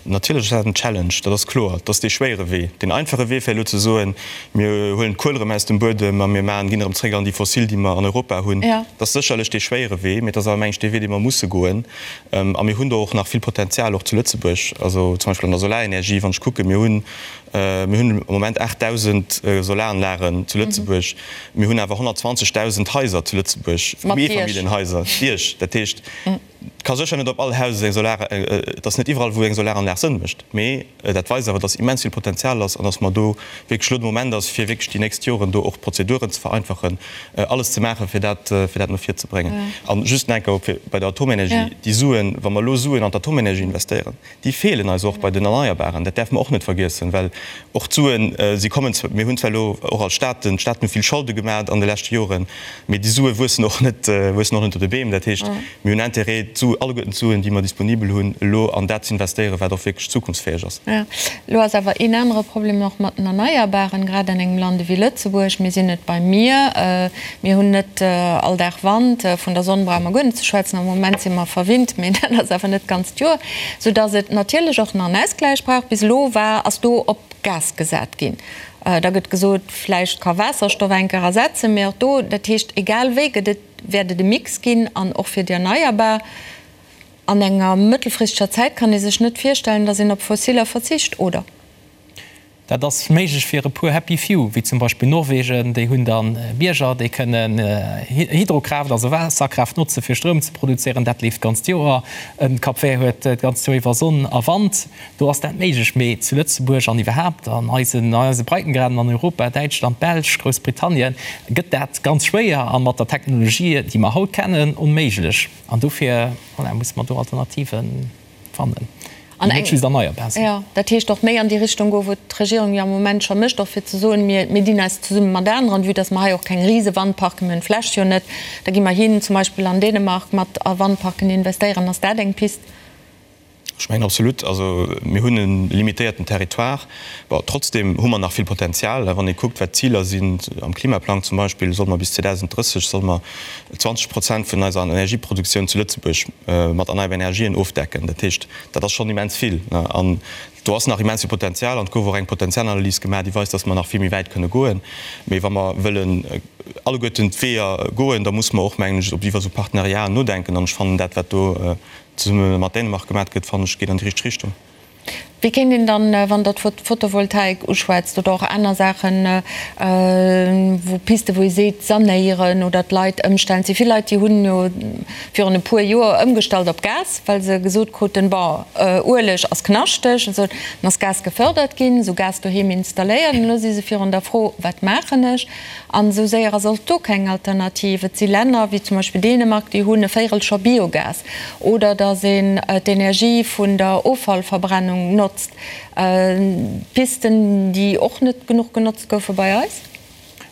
Natierlech ass dat en Challenge, dat ass kloer. Dat ass dee schwéiere Wee. Deen einfache Wee wär elo ze soen, mir huelen d'Kuel erëm aus dem Buedem a mir maachen, ginn erëm zréck an déi fossil, déi mer an Europa hunn. Dat ass sécherlech dee schwéiere Wee, mee et ass awer, meng ech, dee Wee, dee mer musse goen. A mir hunn do och nach vill Potenzial, och zu Lëtzebuerg, also zum Beispill an der Solarenergie, wann ech kucken, mir hunn, Mir hunn am Moment 8.000 Solaranlagen zu Lëtzebuerg. Mir hunn awer 120.000 Haiser zu Lëtzebuerg, Eefamilljenhaiser, Diech. Dat heescht, et ka sécher net op all Haus eng Solar, et ass net iwwerall, wou eng Solaranlag Sënn mécht. Mee dat weist awer, dass immens vill Potenzial ass an dass mer do wierklech elo de Moment ass, fir wierklech déi nächst Joren do och d'Prozeduren ze vereinfachen, alles ze maachen, fir dat, fir dat no vir ze bréngen. A just nach eng Kéier bei der Atomenergie, déi Suen, wa mer elo Suen an d'Atomenergie investéieren, Déi feelen eis och bei den Erneierbaren, dat däerfe mer och net vergiessen, well och d'Suen, si kommen zwar, mir hunn zwar elo och als Staaten, d'Staaten hu vill Scholde gemaat an de leschte Joren, mee déi Sue wuessen och net, wuessen och net op de Beem. Dat heescht, mir hunn Intérêt, d'Su, alleguerten d'Suen, déi mer disponibel hunn, elo an dat ze investéieren, wat och wierklech zukunftsfäeg ass. Jo, elo ass awer een anere Problem och mat den Erneierbaren, grad an engem Land ewéi Lëtzebuerg. Mir sinn et bei mir, Mir hunn net all Dag Wand. Vun der Sonn brauche mer guer net ze schwätzen. Am Moment si mer verwinnt, mee dat ass awer net d'ganzt Joer. Soudass et natierlech och nach en Ausgläich brauch. Bis elo war, ass do op Gas gesat ginn. Da gëtt gesot, vläicht ka Waasserstoff eng Kéier ersetzen, mee och do, dat heescht, egal wéi gëtt et, wäert et e Mix ginn an och fir déi Erneierbar. An enger mëttelfristeger Zäit kann ee sech net virstellen, datt een op Fossiller verzicht, oder? Dat ass méiglech fir e puer happy few, wéi zum Beispill Norwegen. Déi hunn da Bierger, déi kënnen Hydrokraaft, also Waasserkraaft notze fir Stroum ze produzéieren. Dat leeft d'ganzt Joer. En Cap Vert huet d'ganzt Joer iwwer Sonn a Wand. Do ass dat méiglech. Mee zu Lëtzebuerg an iwwerhaapt an eisen eise Breitengraden an Europa, Däitschland, Belsch, Groussbritannien, gëtt dat ganz schwéier a mat der Technologie, déi mer haut kennen, onméiglech. An dofir, voilà, musse mer do Alternativen. fannen, déi net just erneierbar sinn. Jo, dat heescht och méi an déi Richtung goen, wou d'Regierung jo am Moment scho mécht, och fir ze soen, mir, mir dinn eis zesumme mat aneren, vue dass mer hei och keng Risewandparken, mir hunn d'Fläch jo net, da gi mer hin zum Beispill an Dänemark mat a Wandparken investéieren. Ass dat eng Pist? Ech mengen absolut. Also mir hunn e limitéierten Territoire. Bon, trotzdem hu mer nach vill Potenzial. Wann ee kuckt, wat d'Ziler sinn am Klimaplang zum Beispill, solle mer bis 2030 solle mer 20 Prozent vun eiser Energieproduktioun zu Lëtzebuerg mat erneierbaren Energien ofdecken. Dat heescht, dat ass schonn immens vill. An do ass nach immens vill Potenzial. An et gouf och eng Potenzialanalys gemaach, déi weist, dass mer nach vill méi wäit kënne goen. Mee wa mer wëllen alleguerten d'Weeër goen, da musse mer och, mengen ech, iwwer esou Partenariaten nodenken. An ech fannen dat, wat do zesumme mat Dänemark gemaach gëtt, fannen ech, geet an déi richteg Richtung. Wéi kéint een dann, wann Der d'Photovoltaik uschwätzt oder och aner Saachen, wou Pisten, wou ee seet, sanéieren oder d'Leit ëmstellen? Et si vill Leit, déi hunn jo virun e puer Joer ëmgestallt op Gas, well se gesot kruten, bon, Ueleg ass knaschteg. Esou, dann ass Gas gefördert ginn, esou Gas doheem installéiert. An elo si se virun der Fro, Wat maachen ech? An esou séier ass och do keng Alternativ. Et si Länner, wéi zum Beispill Dänemark, déi hunn e Véirel scho Biogas. Oder datt een d'Energie vun der Offallverbrennung notzt. Pisten, déi och net genuch genotzt goufe bei eis.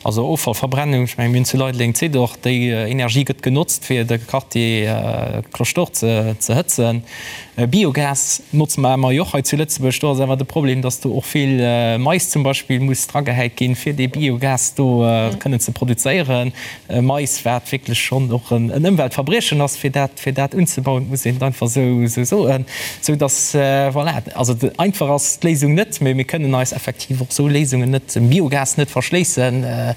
Also Offallverbrennung, ech mengen, mir hunn zu Leideleng d'Zidor, déi Energie gëtt genotzt, fir de Quartier Cloche d'Or ze hëtzen. Biogas notze mer emmer jo och hei zu Lëtzebuerg. Do ass awer de Problem, dass do och vill Mais zum Beispill muss dragehäit ginn, fir dee Biogas do kënnen ze produzéieren. Mais, wat wierklech schonn och en Ëmweltverbriechen ass, fir dat, fir dat unzebauen, muss een et einfach esou soen. Sou dass, voilà, also einfach ass d'Léisung net, mee mir kënnen eis effektiv och esou Léisungen net, dem Biogas net verschléissen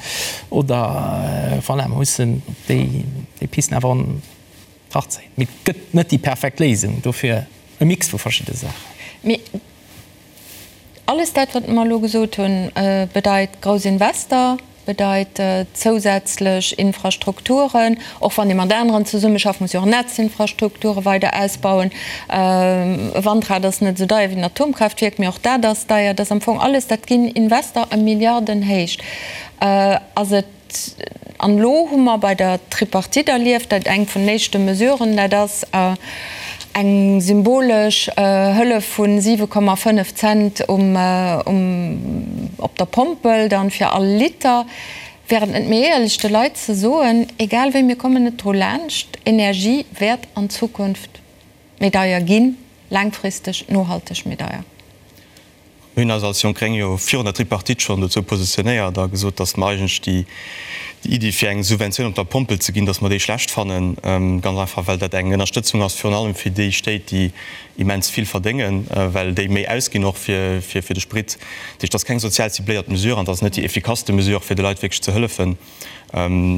oder, voilà, mer mussen déi Pisten awer an. Betracht zéien. Mee et gëtt net déi perfekt Léisung, dofir e Mix vu verschidde Saachen. Mee alles dat, wat mer elo gesot hunn, bedeit grouss Invester, bedeit zousätzlech Infrastrukturen. Och wann ee mat aneren zesummeschafft, muss ee och Netzinfrastrukture weider ausbauen. E Wandrad ass net esou deier wéi en Atomkraaftwierk, mee och dat ass deier. Dat ass am Fong alles, dat ginn Invester a Milliardenhéicht. Ass et. An elo hu mer bei der Tripartite erlieft, dat eng vun den éischte Mesuren, dat ass eng symbolesch Hëllef vu 7,5 Cent um, op der Pompel dann fir all Liter. Wär et net méi éierlech de Leit ze soen, egal wéi, mir kommen net dru laanscht, Energie wäert an Zukunft méi deier ginn, laangfristeg, nohalteg méi deier? Mir hunn eis als Jonk Gréng jo virun der Tripartite schonn dozou positionéiert a gesot, datt mer eigentlech déi Iddi, fir eng Subventioun op der Pompel ze ginn, datt mer déi schlecht fannen. Ganz einfach, well dat eng Ënnerstëtzung ass virun allem fir déi Stéit, déi immens vill verdéngen, well déi méi ausginn och fir de Sprit. Dat heescht, dat ass keng sozial cibléiert Mesure an dat ass net déi effikasste Mesure, fir de Leit wierklech ze hëllefen.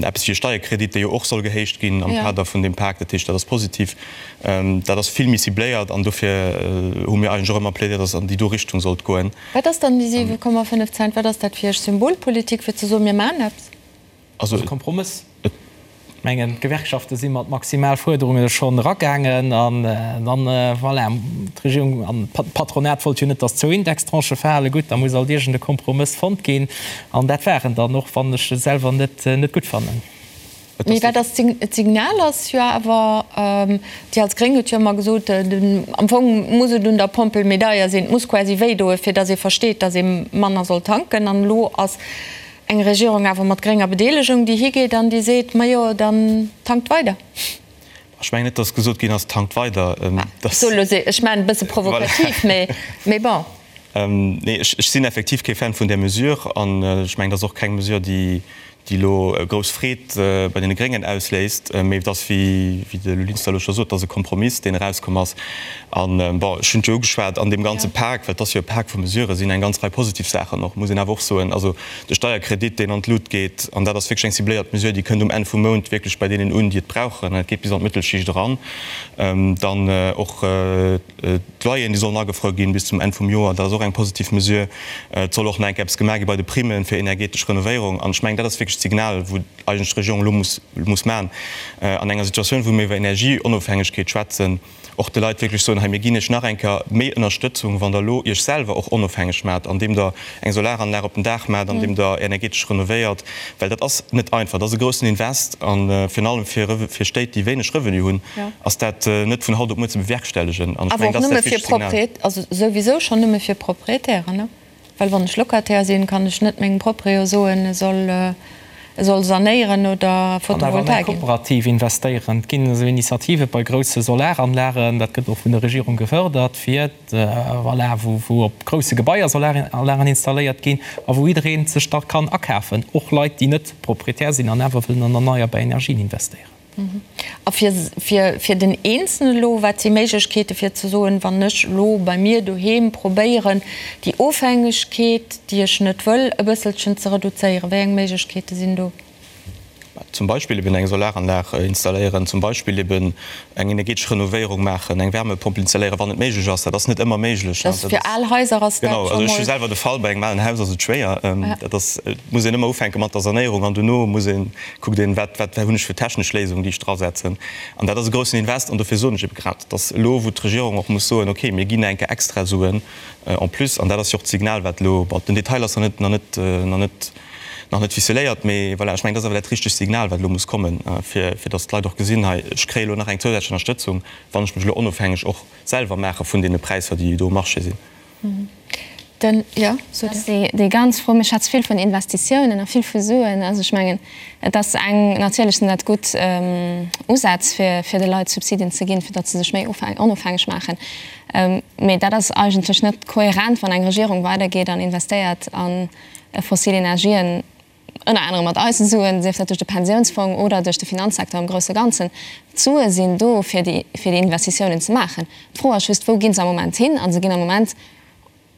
Eppes wéi e Steierkredit, dee jo och soll gehéicht ginn am Kader vun deem Pak, dat heescht, dat ass positiv, dat ass vill méi cibléiert an dofir hu mir eigentlech och ëmmer plädéiert, datt et an déi do Richtung sollt goen. Wat ass dann déi 7,5 Cent? Wat ass dat fir Iech? Symbolpolitik, fir ze soen, mir maachen eppes? Also e Kompromëss. Ech mengen, d'Gewerkschafte si mat Maximalfuerderunge schonn eragaangen an dann, voilà, d'Regierung an d'Patronat wollt jo net, datt zwou Indextranchë fale. Gutt, da muss alt iergend e Kompromëss fonnt ginn an dat war en dann, och wann ech e selwer net net gutt fannen. Mee wat ass d'Signal ass jo awer, Dir als Gréng hutt jo ëmmer gesot, am Fong muss et un der Pompel méi deier sinn, et muss quasi wéidoen, fir datt ee versteet, datt ee manner soll tanken. An elo ass Eng Regierung awer mat grénger Bedeelegung, déi higeet an déi seet, Majo, dann tankt weider. Ech mengen net, datt gesot ginn ass, tankt weider. Ech soe lo, ech maachen e bësse provokativ, mee bon. Nee, ech sinn effektiv kee Fan vun där Mesure an ech mengen, dat ass och keng Mesure, déi elo grouss Freed bei deene Gréngen ausléist. Mee et ass, wéi de Lou Linster elo scho sot, et ass e Kompromiss, deen erauskomm ass. An, bon, ech hunn et jo ugeschwat, an deem ganze Pak, well et ass jo e Pak vu Mesuren, sinn eng ganz Rei positiv Saachen och, muss een awer och soen. Also de Steierkredit, deen an d'Lut geet, an dat ass wierklech eng cibléiert Mesure, déi kënnt um Enn vum Mount wierklech bei deenen un, déi et brauchen, an et geet bis an d'Mëttelschicht eran. Dann och d'Loyeren, déi sollen agefruer ginn bis zum Enn vum Joer, dat ass och eng positiv Mesure. Et soll och nach eng Kéier eppes gemaach gi bei de Primme fir energetesch Renovéierung. An ech mengen, dat ass wierklech d'Signal, wou eigentlech d'Regierung elo muss, muss maachen an enger Situatioun, wou mir iwwer Energieonofhängegkeet schwätzen, och de Leit wierklech soen, hei mir ginn iech nach eng Kéier méi Ënnerstëtzung, wann der elo iech selwer och onofhängeg maacht, andeem der eng Solaranlag op den Daach maacht, andeem der energetesch renovéiert, well dat ass net einfach, dat ass e groussen Invest a virun allem fir fir Stéit, déi wéineg Revenu hunn, ass dat net vun haut op muer ze bewerkstellegen. An ech mengen, dat ass dat wichtegt Signal. Also souwisou schonn nëmme fir Proprietären, ne? Well wann ech Locataire sinn, kann ech net mengem Proprio soen, e soll, e soll sanéieren oder An awer an eng Photovoltaik. Kooperativ investéieren. Et ginn esou Initiative bei grousse Solaranlagen, dat gëtt och vun der Regierung gefërdert, fir, voilà, wou, wou op grousse Gebaier Solaranlagen installéiert ginn a wou jidderee sech da kann akafen, och Leit, déi net Proprietär sinn an awer wëllen an erneierbar Energien investéieren. A fir, fir, fir den Eenzelnen elo, wat si Méiglechkeete fir ze soen, wann ech elo bei mir doheem probéieren, déi Ofhängegkeet, déi ech net wëll, e bësselchen ze reduzéieren, wéi eng Méiglechkeete sinn do? Zum Beispill eben eng Solaranlag installéieren, zum Beispill eben eng energetesch Renovéierung maachen, eng Wärmepompel installéieren, wann et méiglech ass. Dat ass net ëmmer méiglech. Dat ass fir al Haiser ass dat scho mol. Genau, also ech hu selwer de Fall, bei engem alen Haus ass et schwéier. Dat ass, et muss een ëmmer ufänke mat der Sanéierung an dono muss een Kuckt een, wat, wat hunn ech fir technesch Léisungen, déi ech drasetzen. An dat ass e groussen Invest. An dofir soen ech ebe grad, dass elo, wou d'Regierung och muss soen, okay, mir ginn eng Kéier extra Suen en plus, an dat ass jo och d'Signal, wat elo, bon, den Detail ass nach net, nach net, nach net, nach net ficeléiert, mee voilà, ech mengen, dat ass awer dat richtegt Signal, wat elo muss kommen, fir, fir dass d'Leit och gesinn, hei, ech kréie elo nach eng zousätzlech Ënnerstëtzung, wann ech mech elo onofhängeg och selwer maache vun deene Präisser, déi do um Marché sinn. Den, jo, sot Dir. Déi ganz Fro, mir schwätze vill vun Investitiounen a vill vu Suen. Also ech mengen, et ass eng, natierlech sinn dat gutt Usätz, fir, fir de Leit Subsidien ze ginn, fir datt se sech méi onofhängeg maachen. Mee dat ass eigentlech net kohärent, wann eng Regierung weidergeet an investéiert a fossil Energien, ënner anerem mat eise Suen, sief dat duerch de Pensiounsfong oder duerch de Finanzsecteur am grousse Ganzen. D'Sue sinn do, fir déi, fir déi Investitiounen ze maachen. D'Fro ass just, Wou gi se am Moment hin? A se ginn am Moment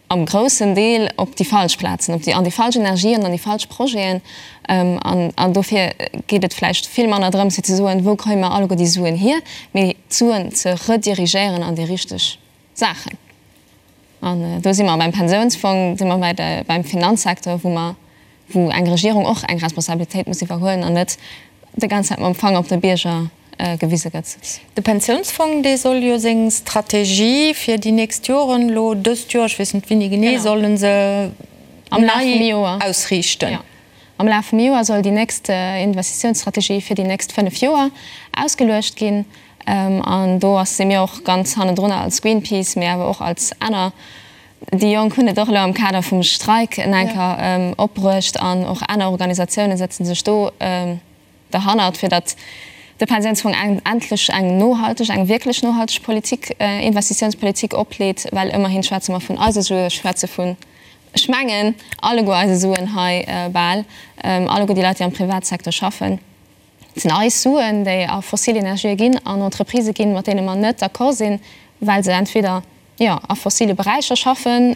am groussen Deel op déi falsch Plazen, op déi, an déi falsch Energien, an déi falsch Projeten. An, an dofir geet et vläicht vill manner drëms, fir ze soen, Wou kréie mer alleguer déi Suen hier? mee d'Suen ze redirigéieren an déi richteg Saachen. An do si mer beim Pensiounsfong, si mer bei de, beim Finanzsecteur, wou mer, wou eng Regierung och eng Responsabilitéit muss iwwerhuelen an net déi ganz Zäit mam Fanger op de Bierger gewise gëtt. De Pensiounsfong, dee soll jo seng Strategie fir déi nächst Joren elo dëst Joer, ech weess net wéini genee, solle se nei ausriichten. Am Laf vum Joer soll déi nächst Investitiounsstrategie fir déi nächst 5 Joer ausgeluecht ginn. An do ass si mir och ganz hannendrunner als Greenpeace, mee awer och als aner. Déi Jonk hunn et och elo am Kader vum Streik en enker opbruecht an och aner Organisatioune sëtze sech do derhannert, fir datt de Pensiounsfong endlech eng nohalteg, eng wierklech nohalteg Politik, Investitiounspolitik opleet, well ëmmerhin schwätze mer vun eise Sue, schwätze vun, ech mengen, alleguer eise Suen hei bal, alleguer déi Leit, déi am Privatsecteur schaffen. Et sinn eis Suen, déi a fossil Energië ginn, an Entreprisë ginn, mat deene mer net d'accord sinn, well se entweder, jo, a fossile Beräicher schaffen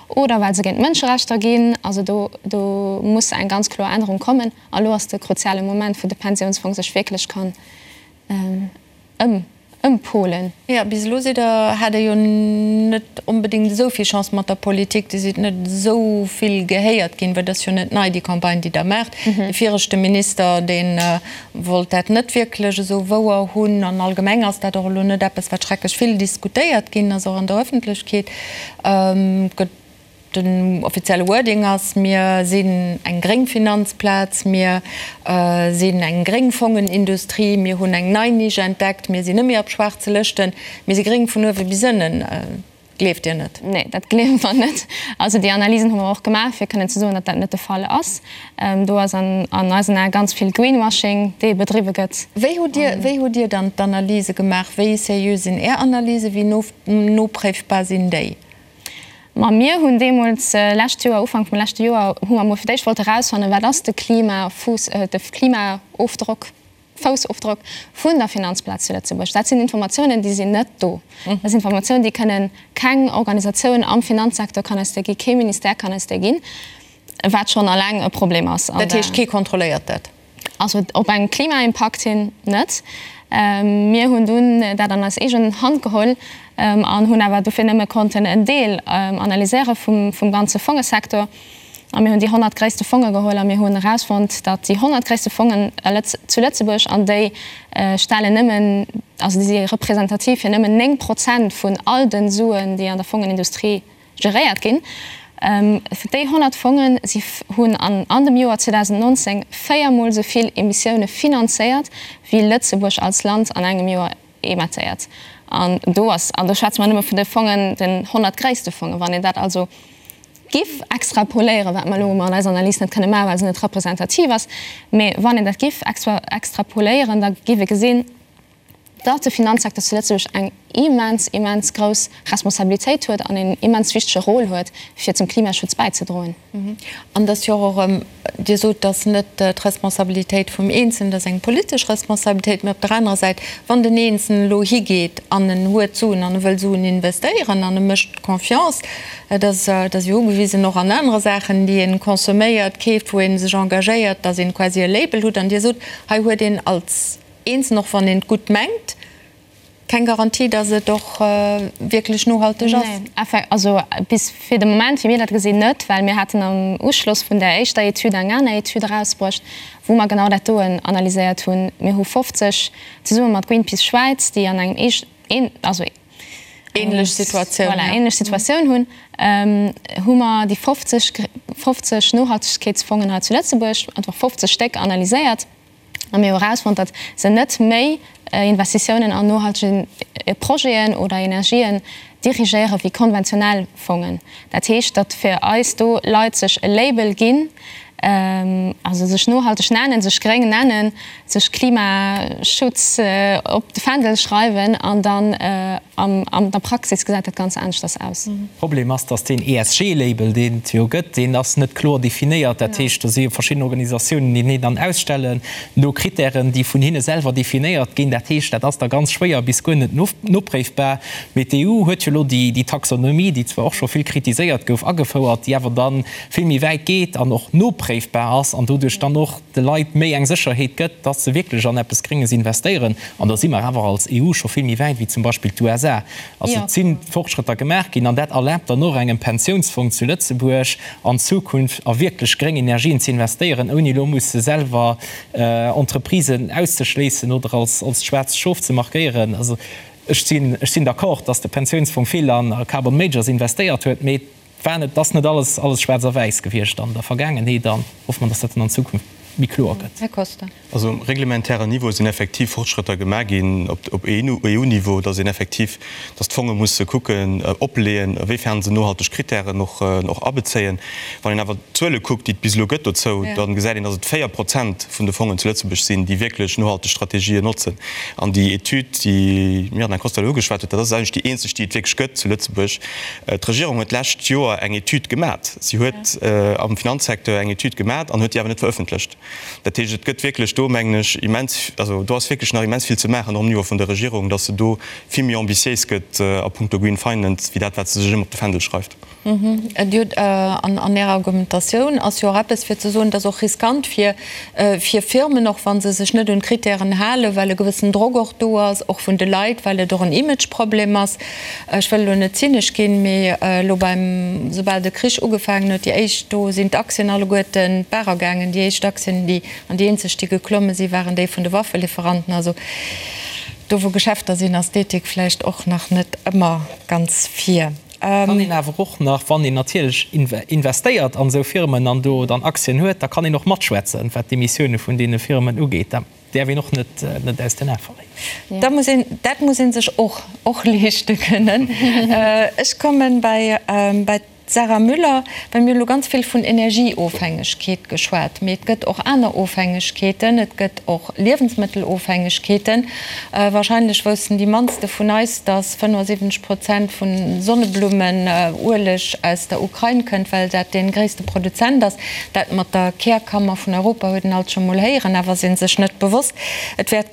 oder well se géint d'Mënscherechter ginn. Also do, do muss eng ganz kloer Ännerung kommen. A lo ass de kruziale Moment, wou de Pensiounsfong sech wierklech kann ëm. Ëmpolen. Jo, bis elo sidd Der, hat Der jo net onbedéngt esou vill Chance mat der Politik. Dir sidd net esou vill gehéiert ginn, well et ass jo net nei, déi Campagne, déi Der maacht. De viregte Minister, dee wollt dat net wierklech esou wouer hunn. An allgemeng ass dat och elo net eppes, wat schrecklech vill diskutéiert ginn ass, och an der Öffentlechkeet. Et gëtt Den offizielle Wording ass, Mir sinn eng gréng Finanzplaz, mir sinn eng gréng Fongenindustrie, mir hunn eng nei Nisch entdeckt, mir sinn net méi op schwaarze Lëschten, mir si gréng vun uewe bis ënnen. Gleeft Dir net? Nee, dat gleewe mer net. Also déi Analysen hu mer och gemaach, fir kënnen ze soen, datt dat net de Fall ass. Do ass an eisen Ae ganz vill Greenwashing, dee bedriwwe gëtt. Wéi hutt Dir, wéi hutt Dir dann d'Analyse gemaach? Wéi seriö sinn Är Analysen? Wéi nopréifbar sinn déi? Ma mir hunn deemools, lescht Joer, Ufank vum leschte Joer, hu mer emol fir d'éischt wollte erausfannen, wat ass de Klimafuuss, de Klimaofdrock, Foussofdrock vun der Finanzplaz zu Lëtzebuerg. Dat sinn Informatiounen, déi sinn net do. Dat sinn Informatiounen, déi kënnen keng Organisatioun am Finanzsecteur kann eis déi ginn, kee Ministère kann eis déi ginn, wat schonn alleng e Problem ass. Dat heescht, kee kontrolléiert dat? Also op eng Klimaimpakt hin net. Mir hunn dunn dat an eis eegen Hand geholl an hunn awer dofir nëmme konnten en Deel analyséiere vum ganze Fongesektor. A mir hunn déi 100 gréisste Fonge geholl a mir hunn erausfonnt, datt déi 100 gréisste Fongen zu Lëtzebuerg, an déi stellen nëmmen, also déi si representativ fir nëmmen 9 Prozent vun all de Suen, déi an der Fongenindustrie Geréiert ginn. Déi 100 Fongen, si hunn an dem Joer 2019 véiermol esou vill Emissioune finanzéiert, wéi Lëtzebuerg als Land an engem Joer emettéiert. An do ass, an do schwätze mer nëmme vun de Fongen, den 100 gréisste Fongen. Wann een dat also giff extrapoléieren, wat mer elo an eiser Analys net kënne maachen, well se net representativ ass, mee wann een dat giff extrapoléieren, da giff ee gesinn, datt de Finanzsecteur zu Lëtzebuerg eng immens, immens grouss Responsabilitéit huet an een immens wichtege Rôle huet, fir zum Klimaschutz bäizedroen. An et ass jo och erëm, Dir sot, et ass net d'Responsabilitéit vum Eenzelnen, et ass eng politesch Responsabilitéit, mä op der anerer Säit, wann den Eenzelnen elo higeet an en huet Suen an e wëll Suen investéieren an e mécht Confiance, et ass, et ass jo ugewisen och an anere Saachen, déi ee consomméiert, keeft, wou ee sech engagéiert, datt een quasi e Label hutt an Dir sot, hei huet een als Eens, och wann een et gutt mengt, keng Garantie, datt et och wierklech nohalteg ass. Nee, also bis fir de Moment, wéi mir dat gesinn, net, well mir haten am Uschloss vun där éischter Etüd eng aner Etüd erausbruecht, wou mer genau dat doen analyséiert hunn. Mir hu 50, zesumme mat Greenpeace Schwäiz, déi an engem een, also ähnlech Situatioun, voilà, ähnlech Situatioun hunn, hu mer déi 50, 50 Nohaltegkeetsfongen hei zu Lëtzebuerg, einfach 50 Stéck analyséiert. A mir hu erausfonnt, datt se net méi Investitiounen an nohaltege Projeten oder Energien dirigéiere wéi konventionell Fongen. Dat heescht, datt fir eis do Leit sech e Label ginn, also sech nohalteg nennen, sech gréng nennen, sech Klimaschutz op de Fändel schreiwen an dann an der Praxis gesäit dat ganz aneschters aus. Problem ass, dass deen ESG-Label, deen et jo gëtt, deen ass net kloer definéiert. Dat heescht, do si jo verschidden Organisatiounen, déi deen dann ausstellen no Kritären, déi vun hinne selwer definéiert ginn. Dat heescht, dat ass da ganz schwéier bis guer net nopréifbar. Mee d'EU huet jo elo déi Taxonomie, déi zwar och scho vill kritiséiert gouf, agefouert, déi awer da vill méi wäit geet an och nopréifbar ass an doduerch dann och de Leit méi eng Sécherheet gëtt, dass se wierklech an eppes Grénges investéieren. An da si mer awer als EU scho vill méi wäit wéi zum Beispill d'USA. Also et si Fortschrëtter gemaach ginn an dat erlaabt dann och engem Pensiounsfong zu Lëtzebuerg an Zukunft a wierklech gréng Energien ze investéieren, ouni elo musse selwer Entreprisen auszeschléissen oder als schwaarzt Schof ze markéieren. Also ech sinn, ech sinn d'accord, dass de Pensiounsfong vill an Carbon Majors investéiert huet, mee. War net, ass net alles, alles schwaarz a wäiss gewiescht an der Vergaangenheet an hoffe mer, dass dat dann an Zukunft méi kloer gëtt. Här Costa. Also um reglementären Niveau sinn effektiv Fortschrëtter gemaach ginn op EU-Niveau, dass een effektiv, dass d'Fonge musse kucken, opleeën, awéifern se nohalteg Kritären och abezéien. Wann een awer d'Zuele kuckt, déi et bis elo gëtt dozou, da gesäit een, dass et 4 Prozent vun de Fongen zu Lëtzebuerg sinn, déi wierklech nohalteg Strategien notzen. An déi Etüd, déi d'Mirjana Costa elo ugeschwat huet, dat ass eigentlech déi eenzeg, déi et wierklech gëtt zu Lëtzebuerg. D'Regierung huet d'lescht Joer eng Etüd gemat. Si huet am Finanzsecteur eng Etüd gemat an huet déi awer net verëffentlecht. Dat heescht, et gëtt wierklech do, mengen ech, immens, also do ass wierklech nach immens vill ze maachen, och um Niveau vun der Regierung, datt se do vill méi ambitiéis gëtt a puncto Green Finance, wéi dat, wat se sech ëmmer op de Fändel schreift. Dir hutt an Ärer Argumentatioun ass jo och eppes fir ze soen, et ass och riskant fir fir Firmen, och wa se sech net un d'Kritären halen, well e gewëssen Drock och do ass, och vun de Leit, well et och en Imageproblem ass. Ech wëll elo net zynesch ginn, mee elo beim, soubal de Krich ugefaangen huet, déi éischt, do sinn d'Aktien alleguerten d'Baach ergaangen. Déi éischt Aktien, déi, an déi eenzeg, déi geklomme sinn, waren déi vun de Waffelieferanten. Also do wou Geschäfter sinn, ass d'Ethik vläicht och nach net ëmmer ganz vir. Kann een awer och nach, wann een natierlech investéiert an esou Firmen an do dann Aktien huet, da kann een och matschwätzen, wat d'Emissioune vun deene Firmen ugeet. Dat däerf een och net aus den Ae verléieren. Da muss een, dat muss ee sech och och leeschte kënnen. Ech komme bei bei d'Sarah Müller, well mir hu lo ganz vill vun Energieofhängegkeet geschwat, mee et gëtt och aner Ofhängegkeeten, et gëtt och Liewensmëttelofhängegkeeten. Wahrscheinlech woussten déi mannste vun eis, dass 75 Prozent vun Sonneblummenueleg aus der Ukrain kënnt, well dat dee gréisste Produzent ass. Dat mat der Kärkammer vun Europa huet een alt scho mol héieren, awer ass ee sech net bewosst. Et wäert,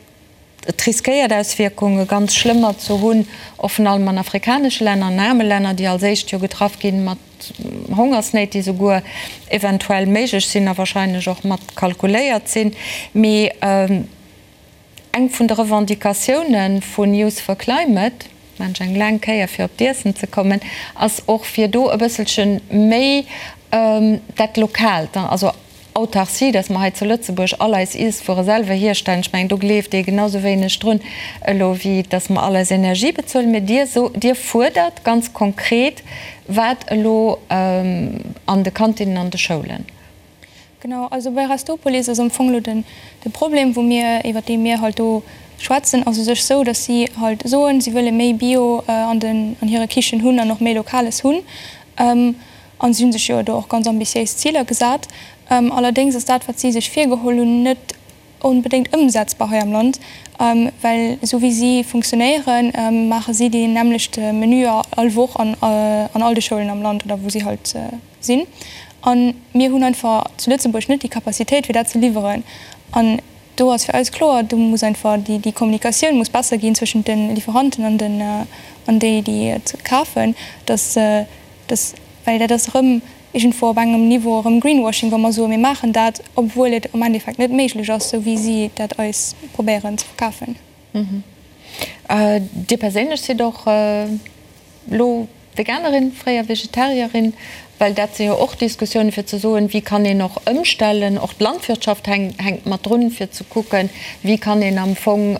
et riskéiert Auswierkunge ganz schlëmmer ze hunn, och vrun allem an afrikanesche Länner, an aarme Länner, déi als éischt jo getraff ginn mat Hongersnéit, déi souguer eventuell méiglech sinn a wahrscheinlech och mat kalkuléiert sinn. Mee Eng vun de Revendicatioune vu Youth for Climate, maan ech eng laang Kéier fir op d'Iessen ze kommen, ass och fir do e bësselche méi dat Lokaalt, also Autarcie, dass mer hei zu Lëtzebuerg all eis Iesswuere selwer hierstellen. Ech mengen, do gleeft ee genau sou wéineg drun elo wéi dass mer all eis Energie bezuelen. Mee Dir so, Dir fuerdert ganz konkret wat elo an de Kantinnen an de Schoulen? Genau, also bei Restopolis ass am Fong elo den de Problem, wou mir, iwwert dee mir halt do schwätzen, ass u sech sou, datt si halt soen, si wëlle méi Bio an den an hire Kichen hunn an och méi Lokales hunn. An si hu sech jo do och ganz ambitiéis Ziler gesat. Allerdéngs ass dat, wat si sech virgeholl hunn, net onbedéngt ëmsetzbar hei am Land, well esou wéi si funktionéieren, maache si deen nämmlechte Menü all Woch an an all de Schoulen am Land oder wou si halt sinn. A mir hunn einfach zu Lëtzebuerg net déi Capacitéit, fir dat ze liwweren. An do ass fir eis kloer, do muss einfach déi déi Kommunikatioun muss besser ginn zwëschent de Lieferanten an den an déi, déi et kafen, dass dass, well dat ass erëm iergendwou op engem Niveau erëm Greenwashing, wa mer soen, mir maachen dat, obwuel et am Endeffekt net méiglech ass, esou wéi si dat eis probéieren ze verkafen. Dir perséinlech sidd och elo Veganerin, fréier Vegetarierin, well dat si jo och Diskussiounen, fir ze soen, wéi kann een och ëmstellen, och d'Landwirtschaft hänkt mat drun, fir ze kucken, wéi kann een am Fong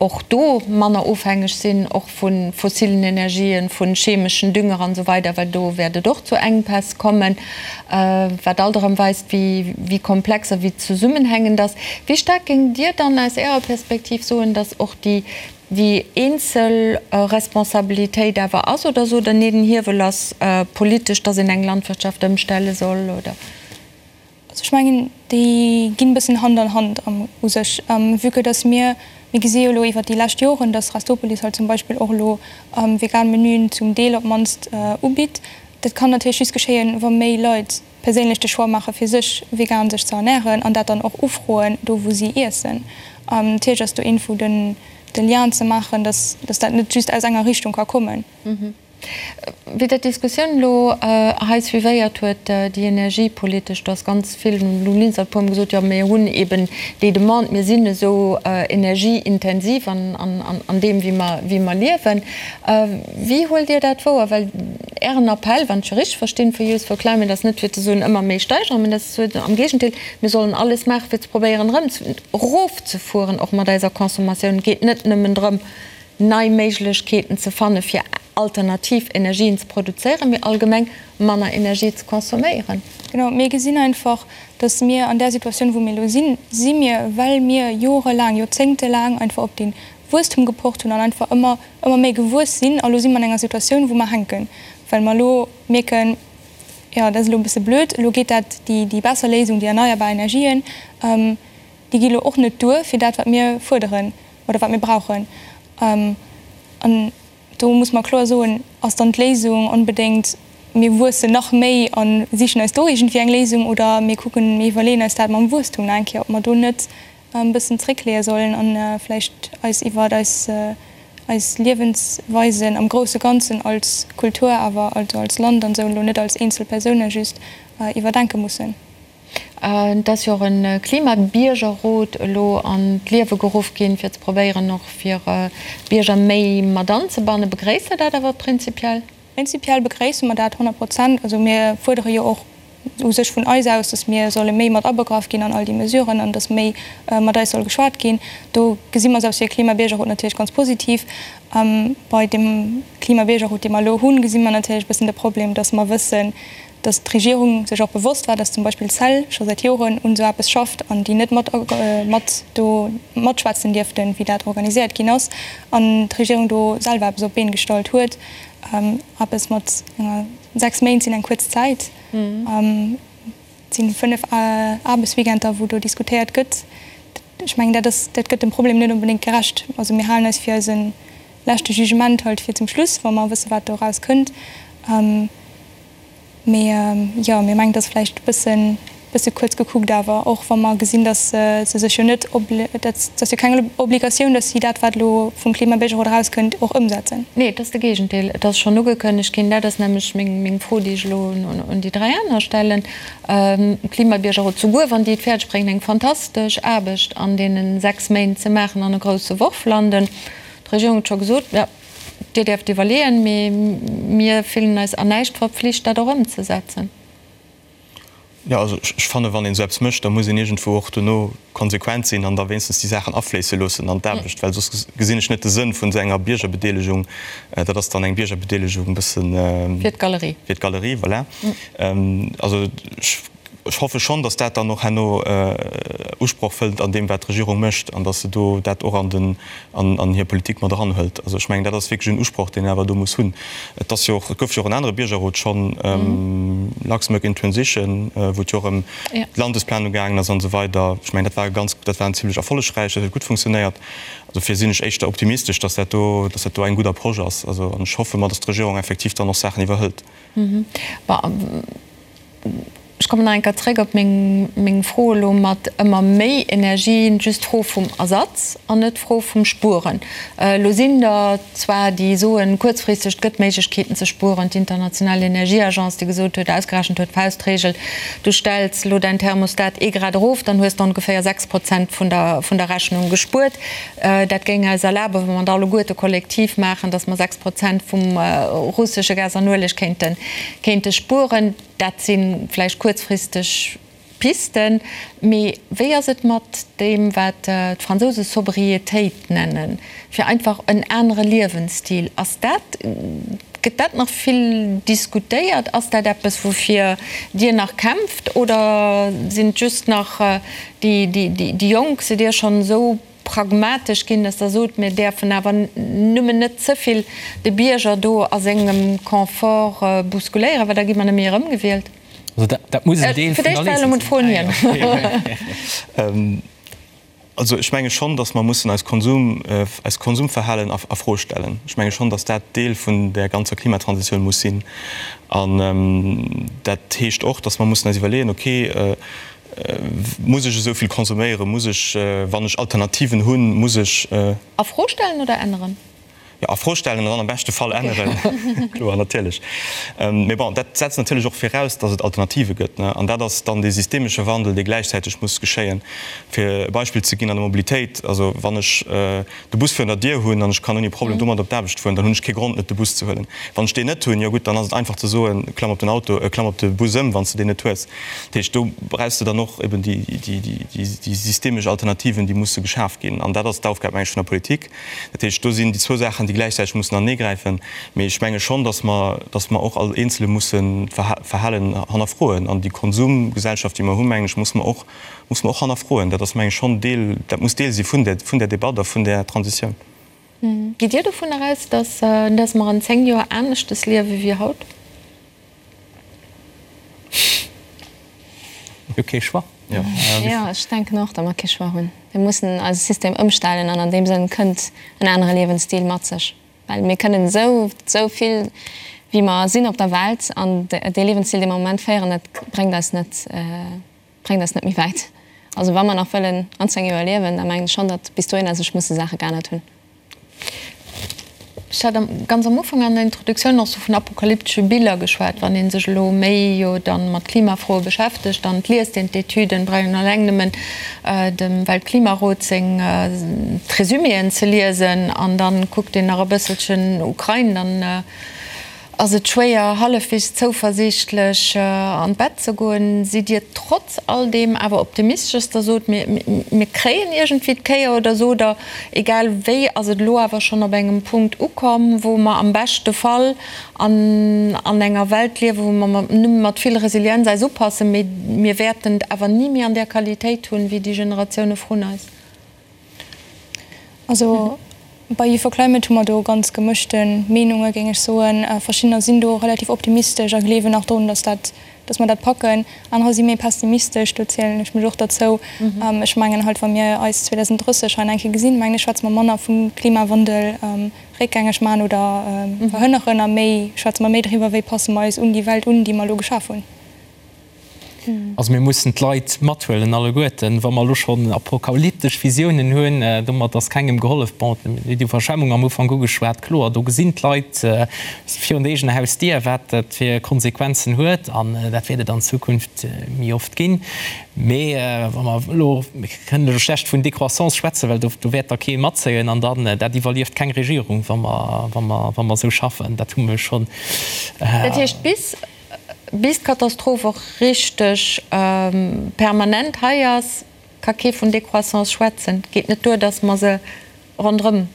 och do manner ofhängeg sinn, och vu fossilen Energien, vu chemeschen Dünger an esou weider, well do wäert et och zu Enkpäss kommen, wat alt erëm weist, wéi komplex a wéi zesummenhängend ass. Wéi staark géingt Dir dann aus Ärer Perspektiv soen, datt och déi déi eenzel Responsabilitéit awer ass, oder sot Der, nee, den Hiewel ass politesch, datt een eng Landwirtschaft ëmstelle soll, oder? Also ech mengen, déi ginn e bëssen Hand an Hand u sech, vue que dass mir, mir gesi jo elo iwwert déi lescht Joren, dass Restopolis halt zum Beispill och elo vegan Menüen zum Deel op d'mannst ubitt. Dat kann natierlech just geschéien, wa méi Leit perséinlech de Choix maache fir sech vegan sech ze ernären an dat dann och ufroen do wou si iessen. Natierlech ass do irgendwou den de Lien ze maachen, dass dass dat net just aus enger Richtung ka kommen. Wéi Der d'Diskussioun elo hei suivéiert huet, déi energiepolitesch, do ass ganz vill, den Lou Linster huet e puermol gesot, jo mir hunn eben déi Demande, mir sinn esou energieintensiv an deem wéi mer, wéi mer liewen. Wéi huelt Dir dat wouer? Well Ären Appell, wann ech e richteg verstinn, vu Youth for Climate ass net fir ze soen, ëmmer méi steigeren, mä dat ass ze soen, am Géigendeel, mir sollen alles maachen, fir ze probéieren erëm erofzefueren, och mat eiser Consommatioun. Et geet net nëmmen drëm, nei Méiglechkeeten ze fanne fir. alternativ Energien ze produzéieren, mee allgemeng manner Energie ze consomméieren. Genau, mir gesinn einfach, dass mir an där Situatioun, wou mir elo sinn, si mir, well mir jorelaang, joerzéngtelaang einfach op dee Wuesstum gepocht hunn an einfach ëmmer, ëmmer méi gewuess sinn. A lo si mer an enger Situatioun, wou mer hänken, well mer elo mierken, jo, dat ass elo e bësse blöd, elo geet dat, déi, déi besser Léisung, déi erneierbar Energien, déi gi elo och net duer fir dat, wat mir fuerderen oder wat mir brauchen. An do muss mer kloer soen, ass dann d'Léisung onbedéngt, mir wuessen nach méi a sichen eis do iergendwéi eng Léisung oder mir kucken, mir iwwerleeën eis dat mam Wuesstum nach eng Kéier, ob mer do net e bëssen zréckleeë sollen a vläicht eis iwwer eis eis Liewensweisen am grousse Ganzen als Kultur awer, also als Land an esou, elo net als eenzel Persoune just, iwwerdenke mussen. Et ass jo och e Klimabiergerrot elo an d'Liewe geruff ginn, fir ze probéieren och fir d'Bierger méi mat anzebannen. Begréisst Der dat awer prinzipiell? Prinzipiell begréisse mer dat 100 Prozent. Also mir fuerdere jo och u sech vun eis aus, datt mir solle méi mat abegraff ginn an all déi Mesuren an datt méi mat eis soll geschwat ginn. Do gesi mer selbst fir e Klimabiergerrot natierlech ganz positiv. Bei deem Klimabiergerrot, dee mer elo hunn, gesi mer natierlech e bëssen de Problem, datt mer wëssen, datt d'Regierung sech och bewosst war, datt zum Beispill d'CEL scho säit Joren un esou eppes schafft an déi net mat mat do matschwätzen dierften, wéi dat organiséiert ginn ass, an d'Regierung do selwer eppes op d'Been gestallt huet. Eppes mat enger, 6 Méint sinn eng kuerz Zäit, et si 5 Aarbechtsweekender, wou do diskutéiert gëtt. Ech mengen, dat ass, dat gëtt dem Problem net onbedéngt gerecht. Also mir halen eis fir eise leschte Jugement halt fir zum Schluss, wa mer wësse wat do eraus kënnt. Mee jo, mir mengen, et ass vläicht e bëssen, bësse kuerz gekuckt awer, och wa mer gesinn, datt se sech jo net, dat ass jo keng Obligatioun, datt si dat, wat elo vum Klimabiergerrot erauskënnt, och ëmsetzen. Nee, et ass de Géigendeel. Et ass schonn ugekënnegt ginn. Dat ass nämlech meng Fro, déi ech elo un déi 3 aner stellen. Klimabiergerrot, souguer wann déi et fäerdeg bréngen, eng fantastesch Aarbecht an deene 6 Méint ze maachen an e grousse Worf landen, d'Regierung huet scho gesot, jo, Dir däerft iwwerleeën, mee mir fillen eis an näischt verpflicht, dat och ëmzesetzen. Jo, also ech fannen, wann een esou eppes mécht, da muss een iergendwou och dono konsequent sinn an da wéinstens déi Saachen afléisse loossen an d'Aarbecht, well soss gesinn ech net de Sënn vun esou enger Biergerbedeelegung. Dat ass dann eng Biergerbedeelegung e bëssen. Fir d'Galerie. Fir d'Galerie, voilà. Also ech. Ech hoffe schonn, datt dat dann och herno Usproch fënnt an deem, wat d'Regierung mécht, an datt se do dat och an den, an hir Politik mat eranhëlt. Also ech mengen, dat ass wierklech en Usproch, deen een awer do muss hunn. Et ass jo och, et gouf jo och en anere Biergerrot schonn, Luxembourg in Transition, wou et jo och ëm d'Landesplanung gaangen ass an esou weider. Ech mengen, dat war e ganz, dat war en zimlech erfollegräich, dat huet gutt funktionéiert. Dofir sinn ech éischter optimistesch, datt dat do, datt dat do eng gutt Approche ass. Also, an ech hoffe mer, datt d'Regierung effektiv dann och Saachen iwwerhëlt. Ech kommen nach eng Kéier zréck op meng Fro elo mat ëmmer méi Energie, just d'Fro vum Ersatz an net d'Fro vum Spueren. Elo sinn der zwar, déi soen, kuerzfristeg, et gëtt Méiglechkeeten ze spueren, d'International Energieagence, déi gesot huet, ausgerechent huet, Faustregel, du stells elo däin Thermostat ee Grad erof, dann hues de ongeféier 6 Prozent vun der Rechnung gespuert. Dat géing eis erlaben, wa mer dat alleguerte kollektiv maachen, datt mer 6 Prozent vum russesche Gas an Ueleg kéinte kéinte spueren. Dat si vläicht kuerzfristeg Pisten. Mee wéi ass et mat deem, wat d'Fransouse Sobriétéit nennen, fir einfach en anere Liewensstil? Ass dat, gëtt dat nach vill diskutéiert? Ass dat eppes, woufir Dir nach kämpft oder sinn et just nach déi Jonk? Sidd Dir schonn esou pragmatesch ginn, dass Der sot, mir däerfen awer nëmmen net ze vill de Bierger do a sengem Confort bousculéieren, well da gi mer net méi erëmgewielt? Also dat muss en Deel vun der Léisung sinn. Also ech menge schonn, dass mer mussen eis Konsum, eist Konsumverhalen a Fro stellen. Ech menge schonn, dass dat Deel vun där ganzer Klimatransitioun muss sinn. An dat heescht och, dass mer mussen eis iwwerleeën, okay, Muss ech esou vill consomméieren? Muss ech, wann ech Alternativen hunn, muss ech. A Fro stellen oder änneren? Jo, a Fro stellen an dann am beschte Fall änneren. Kloer, natierlech. Mee bon, dat setzt natierlech och viraus, datt et Alternative gëtt, ne? An dat ass dann dee systemesche Wandel, dee gläichzäiteg muss geschéien. Fir e Beispill ze ginn an der Mobilitéit, also wann ech de Bus virun der Dier hunn an ech kann ouni Problem domat op d'Aarbecht fueren, dann hunn ech kee Grond net de Bus ze huelen. Wann ech deen net hunn, jo gutt, dann ass et einfach ze soen, klamm op den Auto, klamm op de Bus ëm, wann s de deen net hues. Dat heescht, do brauchs de dann och eben déi déi systemesch Alternativen, déi musse geschaf ginn. An dat ass d'Aufgab, meng ech, vun der Politik. Dat heescht, do sinn déi zwou Saachen, déi. déi gläichzäiteg mussen aneegräifen. Mee ech menge schonn, datt mer, datt mer och all Eenzele mussen d'Verhalen hannerfroen. An déi Konsumgesellschaft, déi mer hunn, mengen ech, muss mer och, muss mer och hannerfroen. Dat ass, meng ech, schonn Deel, dat muss Deel si vun där, vun där Debatt a vun där Transitioun. Gitt Dir dovunner aus, datt, datt mer an 10 Joer aneschtes liewe wéi haut? Mir hu kee Choix. Jo, ech denken och, datt mer kee Choix hunn. Mir mussen eise System ëmstellen an an deem Sënn kënnt en anere Liewensstil mat sech. Well mir kënnen esou, esou vill wéi mer sinn op der Welt an dee Liewensstil, dee mer am Moment féieren, dat bréngt eis net, bréngt eis net méi wäit. Also wa mer nach wëllen an 10 Joer liewen, da mengen ech schonn, datt bis dohinner sech musse Saache geännert hunn. Ech hat ganz am Ufank an der Introduktioun och sou vun apokalyptesche Biller geschwat. Wann ee sech elo méi jo dann mat Klimafroe beschäftegt, dann liest een d'Etüden, brauch een eleng nëmmen dem Weltklimarot seng d'Resuméen ze liesen an dann kuckt een nach e bësselchen Ukrain, dann Ass et schwéier, hallefwegs zouversiichtlech an d'Bett ze goen? Sidd Dir trotz all deem awer optimistesch, dass Der sot, mir, mir kréien iergendwéi d'Kéier? Oder sot Der, egal wéi ass et elo awer schonn op engem Punkt ukomm, wou mer am beschte Fall an, an enger Welt liewen, wou mer mat, nëmme mat vill Resilienz eis upassen, mee mir wäerten et awer ni méi an där Qualitéit hunn, wéi déi Generatioune vrun eis? Also bei Youth for Climate hu mer do ganz gemëschte Meenunge géing ech soen. Verschiddener sinn do relativ optimistesch a gleewen nach drun, datt dat, datt mer dat packen. Anerer si méi pessimistesch, do zielen ech mech och derzou. Ech mengen halt, wa mir eis 2030 hei nach eng Kéier gesinn, mengen ech, schwätze mer manner vum Klimawandel réckgängeg man oder verhënneren a méi schwätze mer méi driwwer, wéi passe mer eis un déi Welt un, déi mer elo geschaf hunn. Also mir mussen d'Leit mathuelen alleguerten. Wa mer elo schonn apokalyptesch Visiounen hunn, domat ass kengem gehollef. Bon, déi Iwwerschwemmung am Ufank ugeschwat, kloer, do gesinn d'Leit virun der eegener Hausdier, wat dat fir Konsequenzen huet an dat wäert et an Zukunft méi oft ginn. Mee wa mer elo, mir kënnen elo schlecht vun Décroissance schwätzen, well do wäert da kee matzéien an dann, dat iwwerlieft keng Regierung, wa mer, wa mer, wa mer esou schaffen. Dat hu mer jo schonn. Dat heescht, bis Bis d'Katastroph och richteg permanent hei ass, ka kee vun Décroissance schwätzen. Et geet net duer, datt mer se ronderëm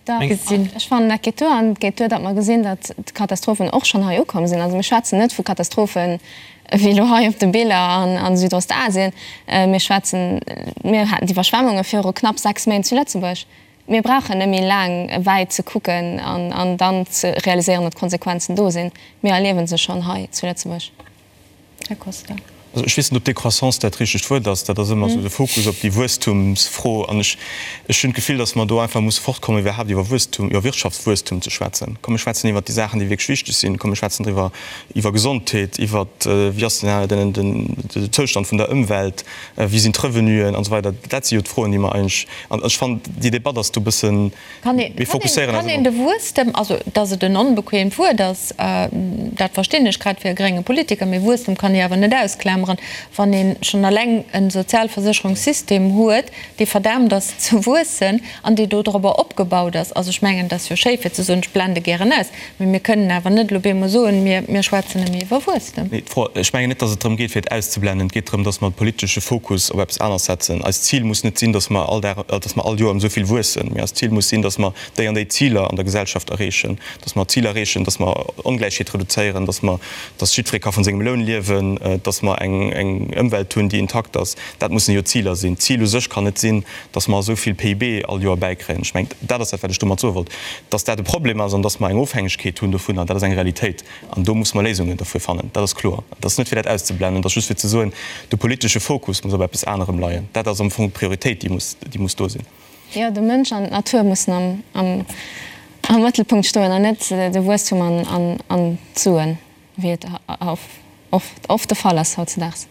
gesinn. Ech fannen, dat geet duer. An et geet duer, datt mer gesinn, datt d'Katastrophen och schonn hei ukomm sinn. Also mir schwätzen net vu Katastrophen wéi elo hei op de Biller a Südostasien. Mir schwätzen, mir haten d'Iwwerschwemmunge viru knapp 6 Méint zu Lëtzebuerg. Mir brauchen net méi laang wäit ze kucken an dann ze realiséieren, datt d'Konsequenzen do sinn. Mir erliewe se schonn hei zu Lëtzebuerg. Här Costa. Also ech weess net, ob Décroissance dat richtegt Wuert ass. Dat ass ëmmer esou de Fokus op déi Wuesstumsfro. An ech, ech hunn d'Gefill, datt mer do einfach musse fortkommen, iwwerhaapt iwwer Wuesstum, iwwer Wirtschaftswuesstum ze schwätzen. Komm mir schwätzen iwwert déi Saachen, déi wierklech wichteg sinn. Komm mir schwätzen driwwer, iwwer Gesondheet, iwwer wéi ass den, den, den Zoustand vun der Ëmwelt, wéi sinn d'Revenuen an esou weider. Dat si jo d'Froen, déi mer eigentlech, an ech fannen, déi Debatt ass do e bëssen, mir fokusséieren eis ëmmer. Kann een de Wuesstem, also datt et en onbequeemt Wuert ass, dat verstinn ech, grad fir e grénge Politiker, mee Wuesstem kann ee awer net ausklameren, wann ee schonn eleng e Sozialversécherungssystem huet, dee verdaamt ass ze wuessen an dee dodrobber opgebaut ass. Also ech mengen, et ass jo schéi fir ze soen, ech blende gären aus, Mee mir kënnen awer net elo bemol soen, mir, mir schwätzen nëmme iwwer Wuesstem. Nee, d'Fro, ech mengen net, datt et drëm geet, fir et auszublennen. Et geet drëm, datt mer de politesche Fokus op eppes aneres setzen. Eist Zil muss net sinn, datt mer all Dag, datt mer all Joer ëm esou vill wuessen, mee eist Zil muss sinn, datt mer déi an déi Ziler an der Gesellschaft erreechen, datt mer d'Zil erreechen, datt mer Ongläichheet reduzéieren, datt mer, datt jiddweree ka vun sengem Loun liewen, datt mer eng, eng Ëmwelt hunn, déi intakt ass. Dat mussen jo d'Ziler sinn. D'Zil u sech kann net sinn, datt mer esou vill PIB all Joer bäikréien. Ech mengen, dat ass dat, wat ech domat soe wollt. Datt dat e Problem ass an datt mer eng Ofhängegkeet hunn dovunner, dat ass eng Realitéit. An do musse mer Léisungen derfir fannen. Dat ass kloer. Et ass net, fir dat auszublennen, et ass just fir ze soen, de politesche Fokus muss op eppes anerem leien. Dat ass am Fong d'Prioritéit, déi muss, déi muss do sinn. Jo, de Mënsch an d'Natur mussen am, am, am Mëttelpunkt stoen an net de Wuesstum an, an, an d'Suen, wéi et oft, oft de Fall ass hautzedaags.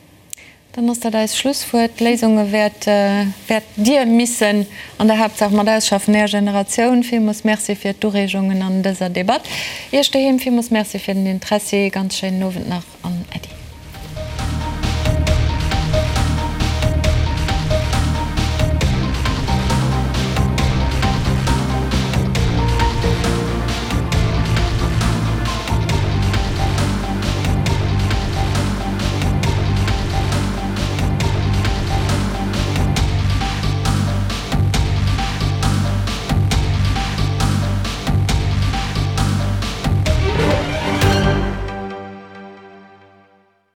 Dann ass dat eist Schlusswuert. D'Léisunge wäert, wäert Dir missen an der Haaptsaach mat ausschaffen, Är Generatioun. Villmools Merci fir d'Ureegungen an dëser Debatt. Iech doheem villmools Merci fir den Interessi. Ganz schéinen Owend nach an Äddi.